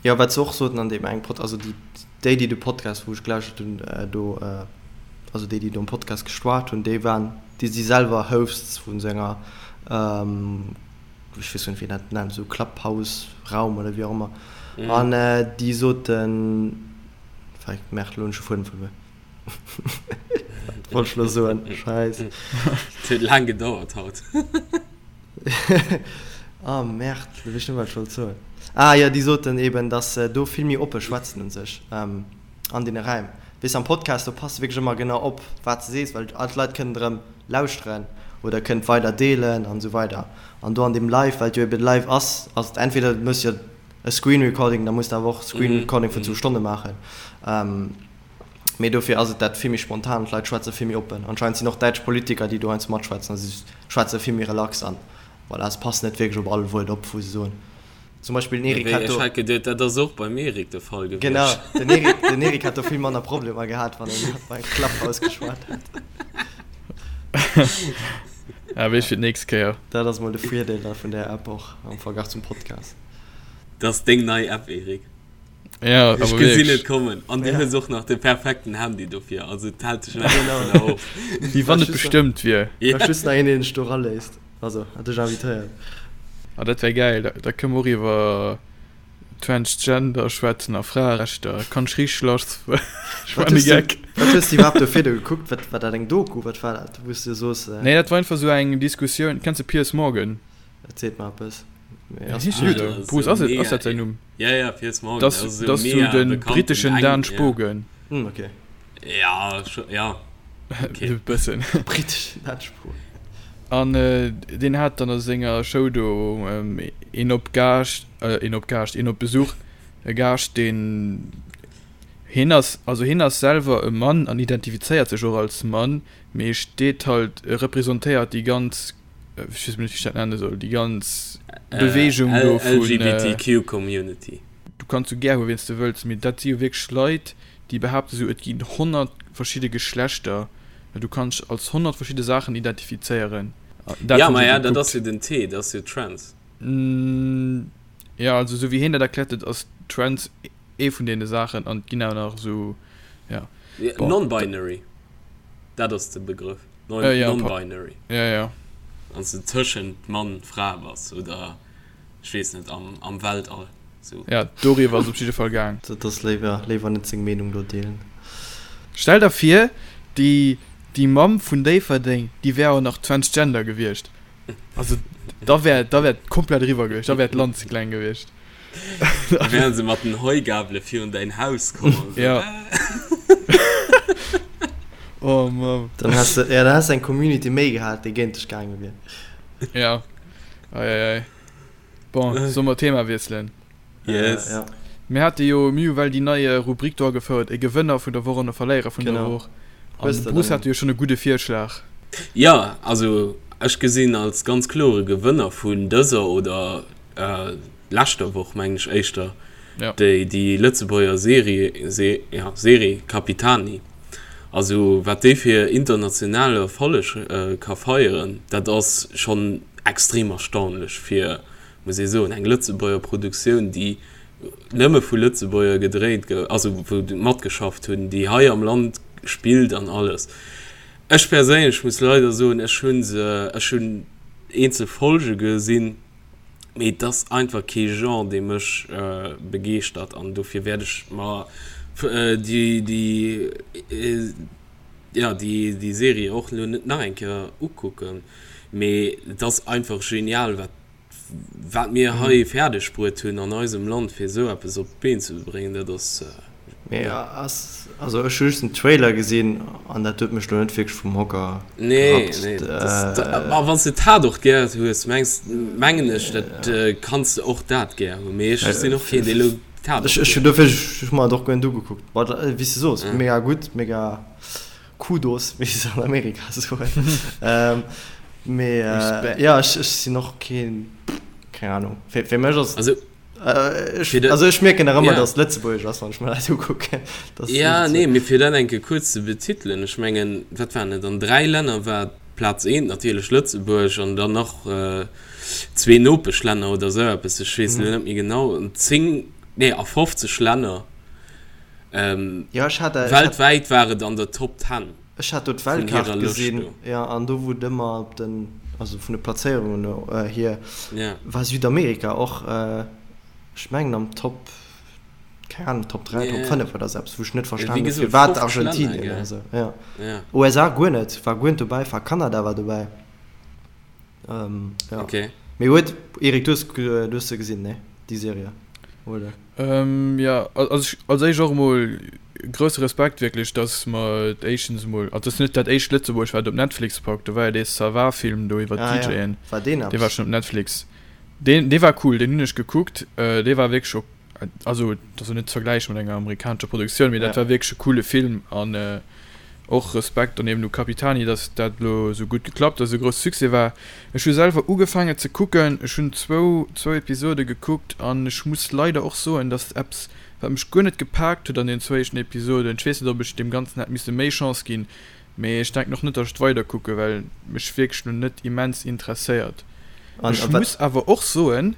Jo, wat se och soten an deem engem Pod, also déi déi déi de Podcast wou ech gelauschtert hunn do, also déi déi do am Podcast geschwat hunn, déi waren, déi si selwer Hosts vun esou enger, ech weess net wéi een dat nennt, esou Clubhouse-Raum oder wéi och ëmmer, an déi soten, fuck, merde, elo hunn ech de Fuedem verluer, wat wollt ech elo soen, scheiss. Et huet laang gedauert haut. Ah merde, elo weess ech net méi wat ech wollt soen. Ah jo, déi soten eben, datt se do vill méi oppe schwätzen un sech an deene Räim. Weess de, am Podcast, do pass de wierklech ëmmer genau op, wat de sees, well all d'Leit kënnen erëm lauschteren oder kënnen et weider deelen an esou weider. An do an deem Live, well et jo eben live ass, ass et entweder du méchs jo e Screen Recording, da muss de awer och Screen Recording vun zwou Stonne maachen. Mee dofir ass et dat vill méi spontan, d'Leit schwätze vill méi oppen. Anscheinend sinn och däitsch Politiker, déi do heiansdo matschwätzen a si schwätze vill méi relax an voilà, se passen net wierklech op all Wuert op, wou se soen. Zum Beispill den Eric hat do. Ech hat geduet, dat ass och beim Eric de Fall gewiescht. Genau, den Eric, den Eric hat do vill manner Problemer gehat, wann en bei Clubhouse geschwat hat. Ah, weess fir d'nächst Kéier. Dat ass mol de Virdeel da vun där App och am Verglach zum Podcast. Dat ass deng nei App, Eric. Ja, Ech awer gesinn wierklech. et kommen. An du hues och nach de perfekten Handy dofir, also et hält dech nach Genau. dovunner of. Wéi wann et bestëmmt wier. Ja. Brauch just nach een, deen dech do eraléisst. Also, hat dech invitéiert. Ah, dat wär gäil. Da, da kënne mer och iwwer Transgender schwätzen a Fraerechter. Kann ech richteg lass. Ech Wat man e hues du, Geck. wat hues du iwwerhaapt do virdu gekuckt? Wat, war dat eng Doku? Wat war dat, wou s du soos, Nee, dat war einfach sou eng Diskussioun. Kenns de Piers Morgan? Dat seet mer eppes. Mee Wéi ass heescht den deen esou? esou? Bruce, ass et, ass dat säin Numm? Ja, ja, Piers Morgan. Dat ass Dat ass sou de britteschen Dan Spogen. Hm, okay. Ja, scho, ja. Okay. E bëssen. Britteschen Dan Spogen. An deen hat dann a senger Show do een op Gaascht, een op Gaascht, een op Besuch, e Gaascht, deen, hien ass, also hien ass selwer e Mann an identifizéiert sech och als Mann, mee steet halt, representéiert déi ganz ech weess net wéi ech dat nenne soll, déi ganz Beweegung do vun LGBTQ Community. Du kanns sou gär hu wien s de wëlls, mee dat si jo wierklech Leit, déi behaapte sou et ginn 100 verschidde Geschlechter, du kanns dech als 100 verschidde Saachen identifizéieren. Dat Ja, hunn se maja, dat ass gekuckt. jo den T, dat ass jo Trans. Jo, also sou wéi hien dat erkläert huet, ass Trans ee vun deene Saachen an et ginn awer nach esou, ja, bon. Non-binary, dat ass de Begrëff. Non-binary. Ja, ja. Wann s de tëschent Mann, Fra bass oder ech weess net, am, am Weltall. Sou. Ja, doriwwer ass et op jidde Fall gaang. Dat ass léiwer, léiwer net seng Meenung do deelen. Stell der vir, déi, déi Mamm vun Déifferdeng, déi wär och nach transgender gewiescht. Also, da wär, da wär et komplett eriwwer gewiescht, da wär d'Land ze kleng gewiescht. Da wären se mat den Heugabele virun däin Haus komm an esou. Ja. Oh Mann. Dann häss de, ja, dann häss de eng Community méi gehat, déi géint dech gaange wier. Ja. Ei, ei, ei. Bon, solle mer d'Thema wiesselen? Yes. Ja. Mir hate jo, mir hu well déi nei Rubrik do agefouert, e Gewënner vun der Woch an e Verléierer vun der Genau. Woch. An Hues de de Bruce dann hat jo schonn e gudde Virschlag. Ja, also ech gesinn als ganz klore Gewënner vun dëser oder leschter Woch, mengen ech éischter, Ja. déi déi Lëtzebuerger Serie, Se, ja, Serie Capitani. Also wat déi fir internationale Erfolleg ka feieren, dat ass schonn extrem erstaunlech fir muss ee soen, eng Lëtzebuerger Produktioun, déi nëmme vu Lëtzebuerger gedréit gouf, also wou matgeschafft hunn, déi hei am Land spillt an alles. Ech perséinlech muss leider soen, ech hu se, ech hunn eenzel Folge gesinn, mee et ass einfach kee Genre, dee mech begeeschtert an dofir wäert ech mer déi, déi, jo, déi, déi Serie och elo net nach eng Kéier ukucken. Mee et ass einfach genial, wat Wat mir hei fäerdeg bruet hunn an eisem Land, fir esou eppes op d'Been ze bréngen, dat ass. Mee ass, also ech hu just den Trailer gesinn an dat huet mech lo net wierklech vum Hocker Nee, gerappt. nee, dat, ma wann s de Tatort gär hues, mengs, mengen ech, dat kanns de och dat gär hunn. Mee ech sinn och keen, dee lo Tatort Ech, ech hunn dofir, ech hu mer et och guer net ugekuckt. But wéi s de soos, mega gutt, mega. Kudos, wéi se an Amerika soen. Mee ja, ech, ech sinn och keen, keng Ahnung. Fir, fir mech ass Also. Ech, also ech mierken nach ëmmer, yeah. dass Lëtzebuergesch ass, wann ech mir dat ukucken. Ja, nee, mee fir dat eng Kéier kuerz ze betitelen, ech mengen, wat waren et, an 3 Länner war Plaz eent natierlech Lëtzebuerg an dann nach zwee Nopeschlänner oder esou eppes, ech weess elo net méi genau, an 10, nee, a 50 Länner. Ja, ech hat, weltwäit war et an der Top 10. Ech hat do d'Weltkaart gesinn, jo, an do wou et ëmmer op den, also vun de Plazéierungen hier, war Südamerika och, ech mengen am Top, keng Ahnung, Top 3, Top 5 oder esou eppes, wou ech net verstanen hunn, firwat Argentinien oder esou, jo. USA guer net, war guer net dobäi, war Kanada war dobäi. Ja. Okay. Mee huet, Eric, du hues, du hues se gesinn, ne? Déi Serie, oder? Ähm, ja, also ech, als éischt och emol grousse Respekt wierklech, dass mer et éischtens emol, also et ass net dat éischt Lëtzebuerg wat op Netflix packt, do war jo dee Ça va Film do iwwer Ah ja, d'DJen, war deen dee war eppes? schonn op Netflix. Deen, dee war cool, deen hunn ech gekuckt, dee war wierklech ok, also et ass jo net ze vergläiche mat enger amerikanescher Produktioun, mee dat Ja. war wierklech e coole Film an och Respekt dann eben u Capitani, dass dat elo esou gutt geklappt ass, esou grousse Succès war. Ech hu selwer ugefaangen ze kucken, ech hunn zwou zwou Episode gekuckt an ech muss leider och soen, dass eppes wat mech guer net gepaakt huet an den zwou éischten Episoden, ech weess net ob ech deem Ganzen hätt misse méi Chance ginn, mee ech denken och net, dass ech et weider kucke well mech wierklech lo net immens interesséiert. An Ech a wat. muss awer och soen,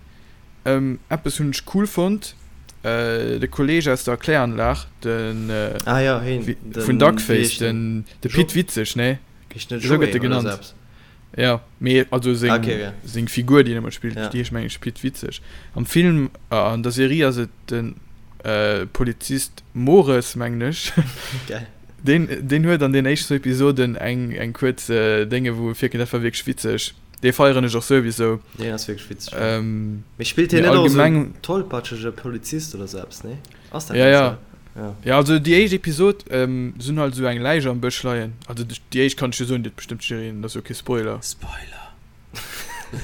Eppes hunn ech cool fonnt, de Kolleg aus der Kläranlag, den Ah jo, heen, vun den, wéi Duckface, heescht den? den de Jo, Pit Witzeg, nee? heescht net Esou gëtt Joé e oder genannt. sou eppes? Jo, mee also Ah, seng okay, ja. seng Figur, déi en ëmmer spillt, Ja. déi heescht meng ech Pit Witzeg. Am Film, an der Serie ass et den Polizist Mores, mengen ech. Geil. Deen deen huet an den éischten Episoden eng eng kuerz Dénge wou e virkënnt, dat war wierklech witzeg. Dee feieren ech och souwisou. Deen ass wierklech witzeg, jo. Ähm, Mee spillt hien mee net och esou en allgemeng. tollpatschege Polizist oder sou eppes, nee? Ass dat Ja, net ja. sou? Ja. Ja, also déi éischt Episod, ähm, se hunn halt esou eng Läich am Bësch leien. Also déi éischt kann ech jo soen, déi huet bestëmmt jiddereen, dat ass jo kee Spoiler. Spoiler!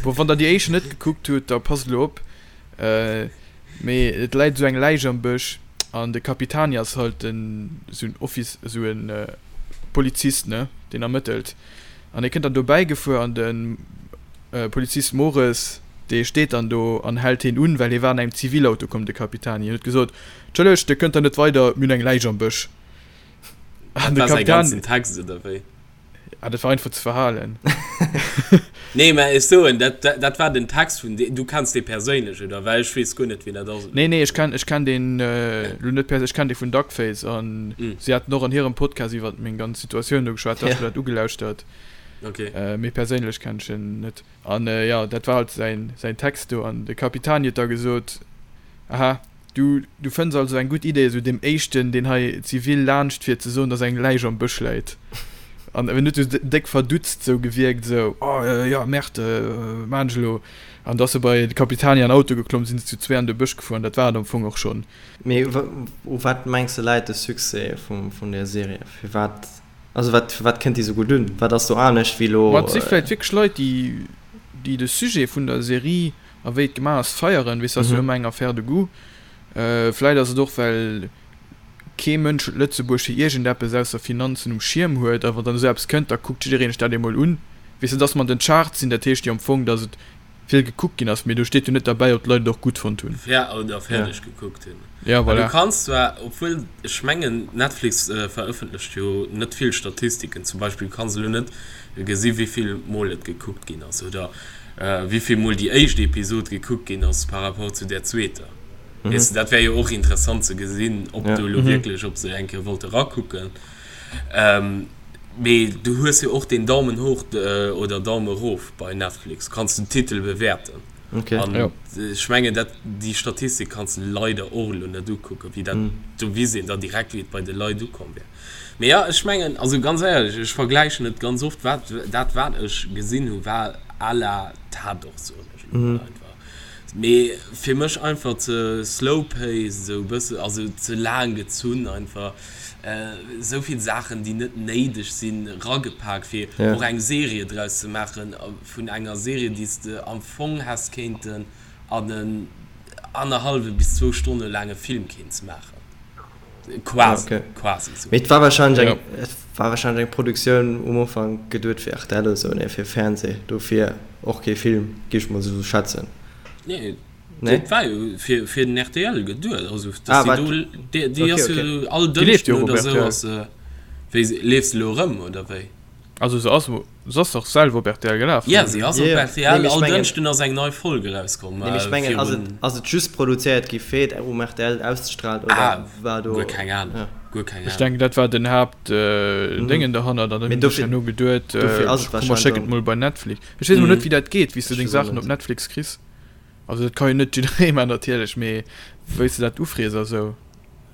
Bon, wann der déi éischt net gekuckt hutt, da passt elo op. Mee et läit esou eng Läich am Bësch an de Capitani ass halt en esou en Office, esou en Polizist, ne, deen ermëttelt. An hie kënnt dann dobäi gefuer an de Polizist Mores, dee steet dann do an hält hien un, well hie war an engem Zivilauto komm, de Capitani. Hien huet gesot, Entschëllegt, Dir kënnt da net weider, mir hunn eng Läich am Bësch. An de Capitani. Dat war säi ganzen Text, oder wéi? Ah, dat war einfach ze verhalen. Nee, mä ech soen, dat, dat war den Text vun deem, du kenns dee perséinlech, oder? Well ech weess guer net, wien dat ass. Nee, nee, ech kenn, ech kenn deen elo net perséinlech, ech kenn dee vun Duckface an si haten och an hirem Podcast iwwer meng ganz Situatioun do geschwat, da hu ech mer dat ugelauschtert. Okay. Mee perséinlech kenn ech en net. An jo, dat war halt säin, säin Text do an de Capitani huet da gesot, Aha, Du, du fënns also eng gutt Idee, esou deem éischten, deen hei zivil laanscht fiert, ze soen, dass eng Läich am Bësch läit. An en huet esou déck verdutzt esou gewierkt, esou, Oh, jo, Merde, wat maan ech elo? An da ass e bei de Capitani an Auto geklomm, sinn se zu zwee an de Bësch gefuer an dat war et am Fong och schonn. Mee u wat mengs de läit de Succès vun där Serie? Firwat, also wat, firwat kënnt déi esou gutt un? Wat ass do anescht wéi elo? Ma et si vläicht wierklech Leit, déi, déi de Sujet vun der Serie A wéi et gemaach ass, feieren, weess, ass jo ëmmer eng Affaire de goût. Vläit ass et och, well kee Mënsch huet Lëtzebuerg fir iergendeppes ausser Finanzen um Schierm huet. A wann dann esou eppes kënnt, da kuckt jiddereen sech dat emol un. Weess de, dass mer an den Charts sinn, dat heescht jo am Fong, dass et vill gekuckt ginn ass, mee do steet jo net derbäi, ob d'Leit et och gutt fonnt hunn. Fer oder fäerdeg gekuckt hunn. Ja, Well du voilà. kanns zwar, obwuel ech mengen, Netflix verëffentlecht jo net vill Statistiken, zum Beispill kanns elo net gesi wéi vill Mol et gekuckt ginn ass oder wéi vill Mol déi éischt Episod gekuckt ginn ass par rapport zu där zweeter. Weess de, dat wär jo och interessant ze gesinn, ob do elo wierklech, ob se eng Kéier wollte rakucken. Mee du hues jo och den Daumen hoch oder Daumen erof bei Netflix, kanns den Titel bewäerten. Okay. An Ja. ech mengen, dat, déi Statistik kanns de leider och elo net ukucken, wéi dat, do weess een da direkt, wéi et bei de Leit ukomm wär. Mee ja, ech mengen, also ganz éierlech, ech vergläichen et ganz oft, wat, dat wat ech gesinn hu war à la Tatort, soen ech elo mol einfach. Mee fir mech einfach ze slow paced, esou e bësse, also ze laang gezunn einfach, esou vill Saachen, déi net néideg sinn, ragepak, fir Ja. och eng Serie draus ze maachen. Vun enger Serie, déi s de am Fong häss kéinten an en annerhallwe bis zwou Stonne laange Film kéints maachen. Quasi, Okay. quasi esou. Mee et war wahrscheinlech Ja. eng, et war wahrscheinlech eng Produktioun um Ufank geduet fir rtl oder sou, nee, fir Fernseh, dofir och kee Film, géif ech mol esou schätzen. Nee. Nee? Dat war jo fir, fir den RTL geduet. Also, dass Ah, déi wat? do, déi, déi Okay, ass okay. jo all Déi leeft Dënschden jo och op oder sou RTL. ass se, wéi, leeft se elo erëm oder wéi? Also se ass, se ass dach selwer op RTL gelaf. Ja, se ass op Yeah. RTL. Nee, mee ech All mengen, Dënschden ass eng nei Folg erauskomm. nee, mee ech mengen, ass et, Virun. ass et just produzéiert gi fir et um RTL auszestrahlen oder Ah, war guer do, keng Ahnung. ja. Guer keng Ech Ahnung. denken, dat war den Haapt äh, Mhm. Déngen derhannert an dann Mee hunn sech dofir, herno geduet, dofir äh, ass et komm mer wahrscheinlech schécken et och, mol bei Netflix. Ech weess emol net, Mhm. wéi dat geet, wéi s du ech deng weess och Saachen op net. Netflix kriss. Also dat ka jo net jidderee man natierlech, mee wéi s de dat ufrees a sou.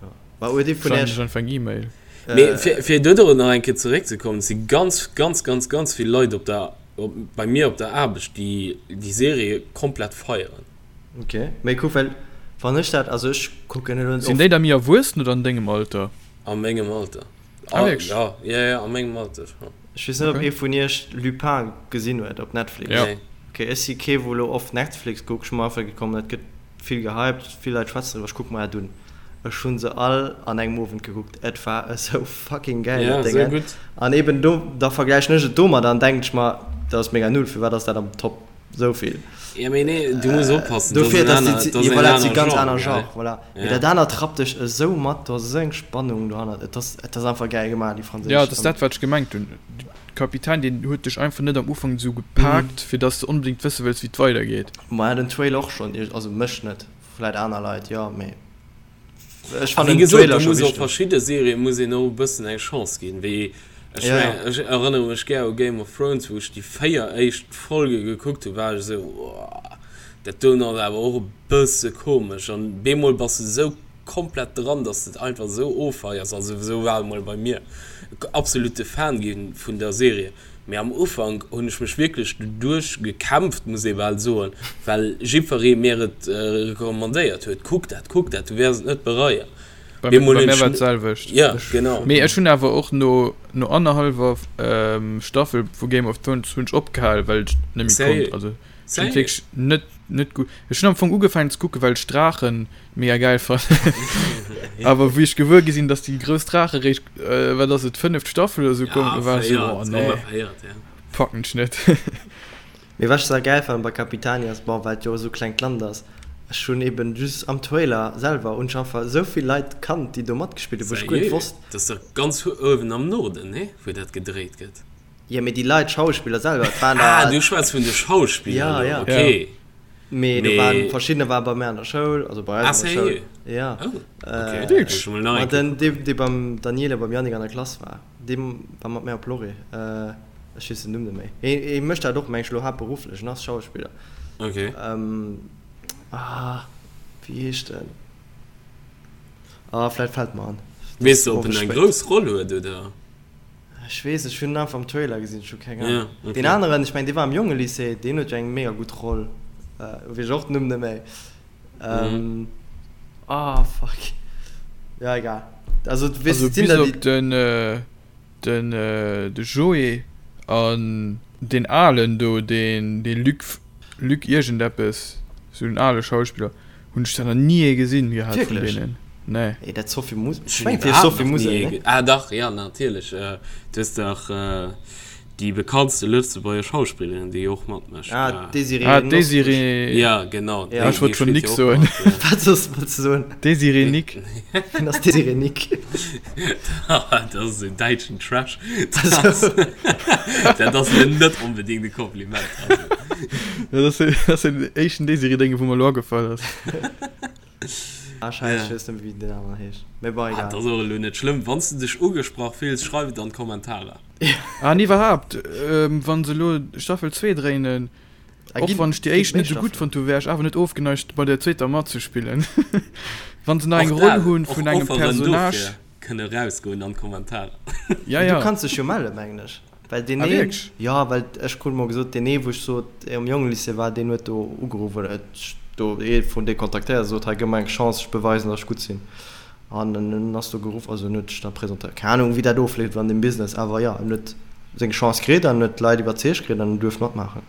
Ja. Mä huet ee vun Schreiwen iech, ech einfach eng E-Mail. Mee fir, fir dodrop nach eng Kéier zeréckzekommen, et si ganz, ganz, ganz, ganz vill Leit op der, op, bei mir op der Aarbecht, déi déi Serie komplett feieren. Ok, mee kuck, well wann ech dat, also ech kucken elo net Sinn oft. déi da méi erwuessen oder an dengem Alter? A mengem Alter. Ah, wierklech? Ja, ja, ja, a mengem Alter scho. Ech weess net, ob Okay. ee vun iech Lupin gesinn huet op Netflix. Ja. Nee. Ok, ech si kee wou elo oft Netflix kuckt, ech hu mer einfach gekomm, dat gëtt vill gehypt, vill Leit schwätzen driwwer, ech kucke mer dat un. Ech hu se all an engem Owend gekuckt, et war esou fucking gäil Ja, dat esou Déngen. gutt. An eben do, da vergläichen ech et domadder an denken ech mer, dat ass mega null, firwat ass dat am Top esou vill? Ja, mee nee, du muss oppassen, dat ass Dofir, en dass aner, déi, dat ass jo en voilà, dat si aner ganz Genre, aner gell? Genre, voilà. Mee Ja. dat anert rappt dech esou mat, do ass esou eng Spannung dohannert, et ass, et ass einfach gäil gemaach, déi Ja, franséisch. dat ass dat, wat ech gemengt hunn. De Kapitän, deen huet dech einfach net am Ufank esou gepaakt, fir dass de onbedéngt wësse wëlls, wéi et weidergeet. Maja, den Trailer och schonn, also mech net, vläit aner Leit, jo, mee ech A wéi fannen den gesot, Trailer do scho muss och wichteg. verschidde Serië muss een och e bëssen eng Chance ginn, wéi ech Ja, ja. mengen, ech erënnere mech gär u Game of Thrones, wou ech déi 4 éischt Folge gekuckt hunn, war ech esou, Woah, dat doen ass awer och e bësse komesch. An bemol bass de esou komplett dran, dass de et einfach esou offeiers, also esou war et mol bei mir, absolute Fan gi vun der Serie. Mee am Ufank hunn ech mech wierklech doduerch gekämpft, muss ee bal soen, well jiddweree mir et recommandéiert huet, Kuck dat, kuck dat, du wäers et net bereien. Bei Bemol bei hunn mär ech war et d'selwecht. Ja, Ech, genau. mee ech hunn awer och no no annerhallwer Staffel vu Game of Thrones hunn ech opgehal, well ech net méi konnt. Sérieux? Also ech hunn et Sérieux? wierklech net net gutt. Ech hunn am Fong ugefaangen ze kucken, well ech Draachen mega gäil fannen. Awer wéi ech gewuer gi sinn, dass déi grouss Draache réischt, wat ass et, fënneft Staffel oder sou kommen, Ja, war ech sou, véiert, oh nee, ongeféiert, ja. packen ech net. Mee wat ech sa gäil fannen bei Capitani ass, bon, well et jo esou klengt Land ass, ech hunn eben just am Trailer selwer hunn ech einfach esou vill Leit kannt, déi do matgespillt hunn, wou ech guer net Sérieux? wosst. Dat ass dach ganz uewen am Norden, nee? Wou dat gedréit gëtt. Jo, mee déi Leit, d'Schauspiller selwer, et waren Ah, der. du schwätz vun de Schauspiller Ja, elo, ja. okay. Mee do waren Mee. verschiddener waren bei mär an der Schoul, also bei Ah, eis an der Schoul. sérieux? Ja. Oh, okay. Äh, Muss ech mol nach ma eng Kéier den, dee, dee beim Daniela, beim Yannick an der Klass war, dee war mat mär op Lorry. Äh, ech weess den Numm net méi. Hee, hee mécht dat och, meng ech, elo haaptberufflech, en ass Schauspiller. Okay. Ähm, ah, wéi heescht en? Ah, vläit fält mer an. Et Weess ass de, ob en owes eng spéit. grouss Roll huet, oder? Ech weess, ech hunn en einfach am Trailer gesinn, ech hu keng Ahnung. Ja, okay. Deen aneren, ech mengen, dee war am Jongelycée, deen huet jo eng mega gutt Roll, weess ech och den Numm net méi. Mhm. Ah, fuck. Ja, egal. Also, du weess, Also et sinn bis der, déi. op den, den, de Joé an deen Alen do, deen, dee Luc, Luc iergendeppes, sou en ale Schauspiller. Hunn ech der nach ni ee gesinn gehat vun Wierklech? deenen. Nee. Ey, dat Sophie Musel. Ech Ech hunn mengen, et heescht iwwerhaapt Sophie nach ni Musel, ee ne? ge-, ah dach, ja natierlech, du hues dach déi bekanntste lëtzebuerger Schauspillerin, déi och matmécht. Ah, d'Désirée Ah, Nosbusch. d'Désirée. Ja, genau, Ja. déi, Ech wollt déi schonn spillt Nick jo och soen. mat, ja. Wat soss wollts du soen? Désirée Nick. Wien ass Désirée Nick? Dat ass esou däitschen Trash. Dat ass, dat ass elo net onbedéngt e Kompliment, also. Dat ass, dat ass den éischten Désirée-Dénge wou mer elo agefall ass. Ah, scheiße, Ja. ech weess net méi, wéi den aneren heescht. Mee bon, Ah, egal. dat ass och elo net schlëmm. Wann s de dech ugesprach fills, schreif et an d'Kommentarer. Ah, an iwwerhaapt, wann se elo Staffel 2 dréinen, Ah, och ginn, wann ech déi ginn éischt méi net esou gutt Staffelen? fonnt hu, wär ech awer net ofgeneigt bei der zweeter matzespillen. Wann se nach eng Och Roll dat, hunn och vun engem Offeren Personnage. dofir kënne rausgoen an d'Kommentarer. Ja, Du ja. kanns dech jo mellen, mengen ech. Well deen Ah, een, wierklech? jo, well ech krut mol gesot, deen ee wou ech sot, am Jongelycée war, deen huet do ugeruff oder huet do ee vun deene kontaktéiert a sot, hei gëff mer eng Chance, ech beweisen, datt ech gutt sinn. An en ass do geruff, also en huet sech da presentéiert. Keng Ahnung, wéi dat ofleeft an deem Business, awer jo, en huet seng Chance kritt an huet d'Leit iwwerzeegt kritt an en duerft matmaachen.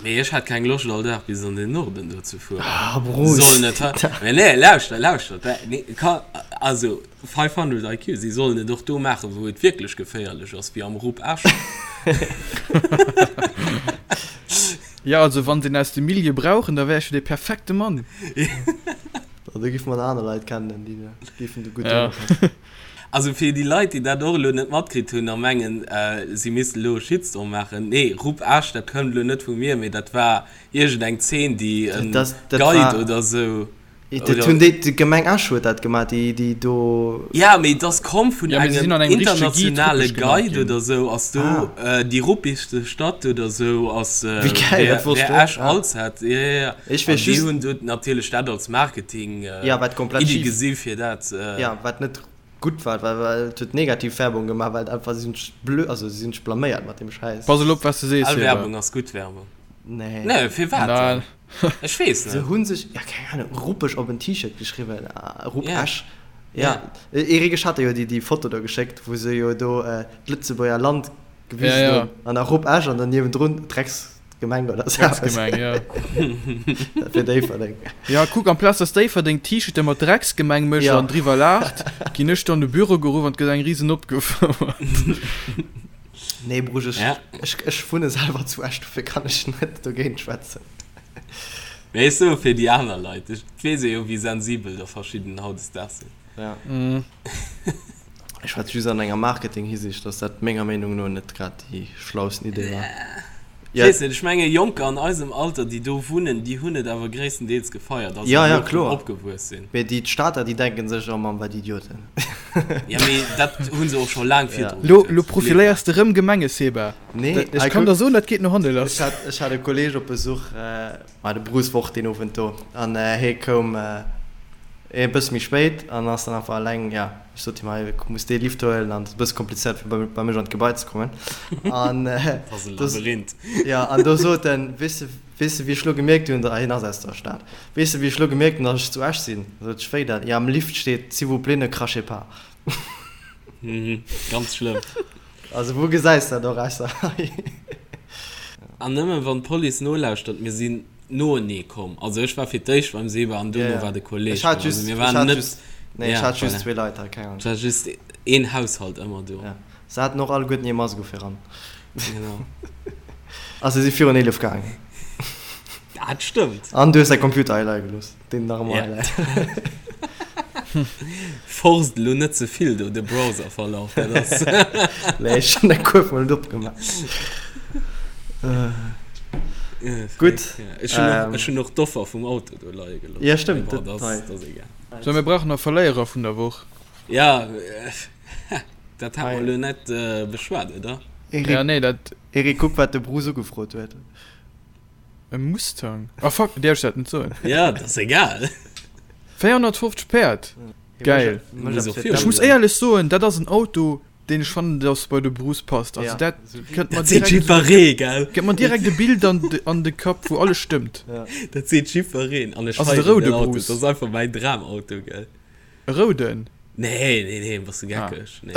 Mee ech hätt keng Loscht all Dag bis an den Norden do ze fueren. Ah, Bruce. Sollen et hei, mee nee, lauschter, lauschter, nee, ka, also 500 IQ, si sollen et och do maachen, wou et wierklech geféierlech ass, wéi am Rupp Esch. Jo, also wann se een aus dem Milieu brauchen, da wär ech jo dee perfekte Mann. Do géife mer nach aner Leit kennen, déi géifen do gutt drënner passen. Also fir déi Leit, déi dat och elo net matkritt hunn a mengen, si missten elo e Shitstorm maachen, Nee, Rupp Esch, dat kënnt elo net vu mir, mee dat war iergendeng Zeen, déi e Guide oder esou. Dat hunn déi, d'Gemeng Esch huet dat gemaach, déi, déi do. Ja, mee et ass komm vun Ja, mee se sinn engem an engem richtege Guide internationale ruppeg genannt Guide ginn. oder esou, ass do Ah. déi ruppigste Stadt oder esou ass, Wéi geil, wär, dat wosst wär ech net. Esch Ah. als hätt. Ja, ja, ja. Ech An weess déi just. hunn do natierlech dat als Marketing Ja, wat komplett Iddi schif. gesi fir dat. Ja, wat net gutt war, well, well et huet negativ Werbung gemaach, well et einfach, si hunn sech blö, also si hunn sech blaméiert mat deem Schäiss. Pass elo op, wat s de sees, All Seba. Werbung ass gutt Werbung. Nee. Nee, firwat Nein. dann? Ech weess Se net. hunn sech, ja keng Ahnung, ruppeg op en T-Shirt geschriwwen, Rupp Ja. Esch. Ja, Eric, ech hat der jo déi, déi Foto do geschéckt, wou se jo do d'Lëtzebuerger Land gewisen Ja, ja. hunn an da Rupp Esch an dann niewendrun Drecksgemeng oder sou eppes. Drecksgemeng, ja. Dat wier Déifferdeng. Ja, kuck, amplaz dass Déifferdeng T-Shirte mat Drecksgemeng mécht Ja. an driwwer laacht, ginn ech dann de Büro geruff an et gëtt eng risen opgefouert. Nee, Brusch, ech, Ja. ech, ech wunne selwer zu Esch, dofir kann ech net dogéint schwätzen. Mee ech soe fir déi aner Leit, ech weess jo, wéi sensibel der verschidden hautdesdaags sinn. Ja. Ech schwätze just an enger Marketing-Hisiicht, dass dat menger Meenung no net grad déi schlausten Idee war. Ech weess net, ech menge Jonker an eisem Alter, déi do wunnen, déi hunn et awer gréisstendeels gefeiert, also Ja, déi ja, och do kloer. opgewuess sinn. Mee déi d'Stater, déi denken sech, oh Mann, wat Idioten. Ja, mee dat hu se och scho laang virdru Lo, geduet. lo profiléiers de rëm Gemenge, Seba. Nee, Dat, ech hei kann kuck, der soen, dat geet no hanne ech lass. hat, ech hat e Kolleg op Besuch, ma de Bruce war och deen Owend do, an hie koum e bësse méi spéit an ass dann einfach eleng, ja, ech sot him, hei, muss dee Lift huelen an et ass e bësse komplizéiert fir bei, bei mech an d'Gebai ze kommen. An Dat ass e do, Labyrinth. ja, an do sot en, weess de, weess de wéi ech lo gemierkt hunn, hien ass aus der Stad, weess de wéi ech lo gemierkt hunn, datt ech zu Esch sinn? Sot ech, wéi dat? Ja, am Lift steet, S'il vous plaît, ne crachez pas. Mhm, ganz schlëmm. Also wou gesäis dat och ausser hei? An nëmmen wann d'Police nolauschtert, mir sinn noenee komm. Also ech war fir d'éischt beim Seba an duerno war de Kolleg Ech hat do. Also just, mir ech waren hat net, just, nee, ech ja, hat just voilà. zwee Leit hei, keng Ahnung. Et war just een Haushalt ëmmer do. Ja. Se haten och alleguerten hir Mask u fir ran. Genau. A se si virun 11 gaangen. Dat stëmmt. An du hues däi Computer hei leie gelooss. Deen nach ëmmer Ja. hei läit. Forst elo net ze vill do de Browserverlaf, dat ass. Nee, ech hunn dat kuerf mol net opgemaach. Gutt. Ech hunn och, ech hunn och d'Offer vum Auto do leie gelooss. Ja, stëmmt, Mee bon, dat dat hei. ass, dat ass egal. Sou, mir brauchen nach Verléierer vun der Woch. Ja, dat hat mer elo net beschwat, oder? Eric, Ja, nee, dat. Eric, kuck wat de Bruce ugefrot huet. E Mustang? Ah fuck, däerf ech dat net soen? Ja, dat ass egal. 450 Päerd! Geil. Ech muss éierlech soen, dat ass en Auto, deen ech fannen, dass bei de Bruce passt. Also dat kënnt mer Dat seet direkt, jiddweree, gell? gëtt mer direkt e Bild an de, an de Kapp, wou alles stëmmt. Dat seet jiddwereen. An ech Also de feieren roude den Auto. Bruce. Dat ass einfach mäin Dramauto, gell? E rouden? Nee, nee, nee, bass du geckeg? Nee.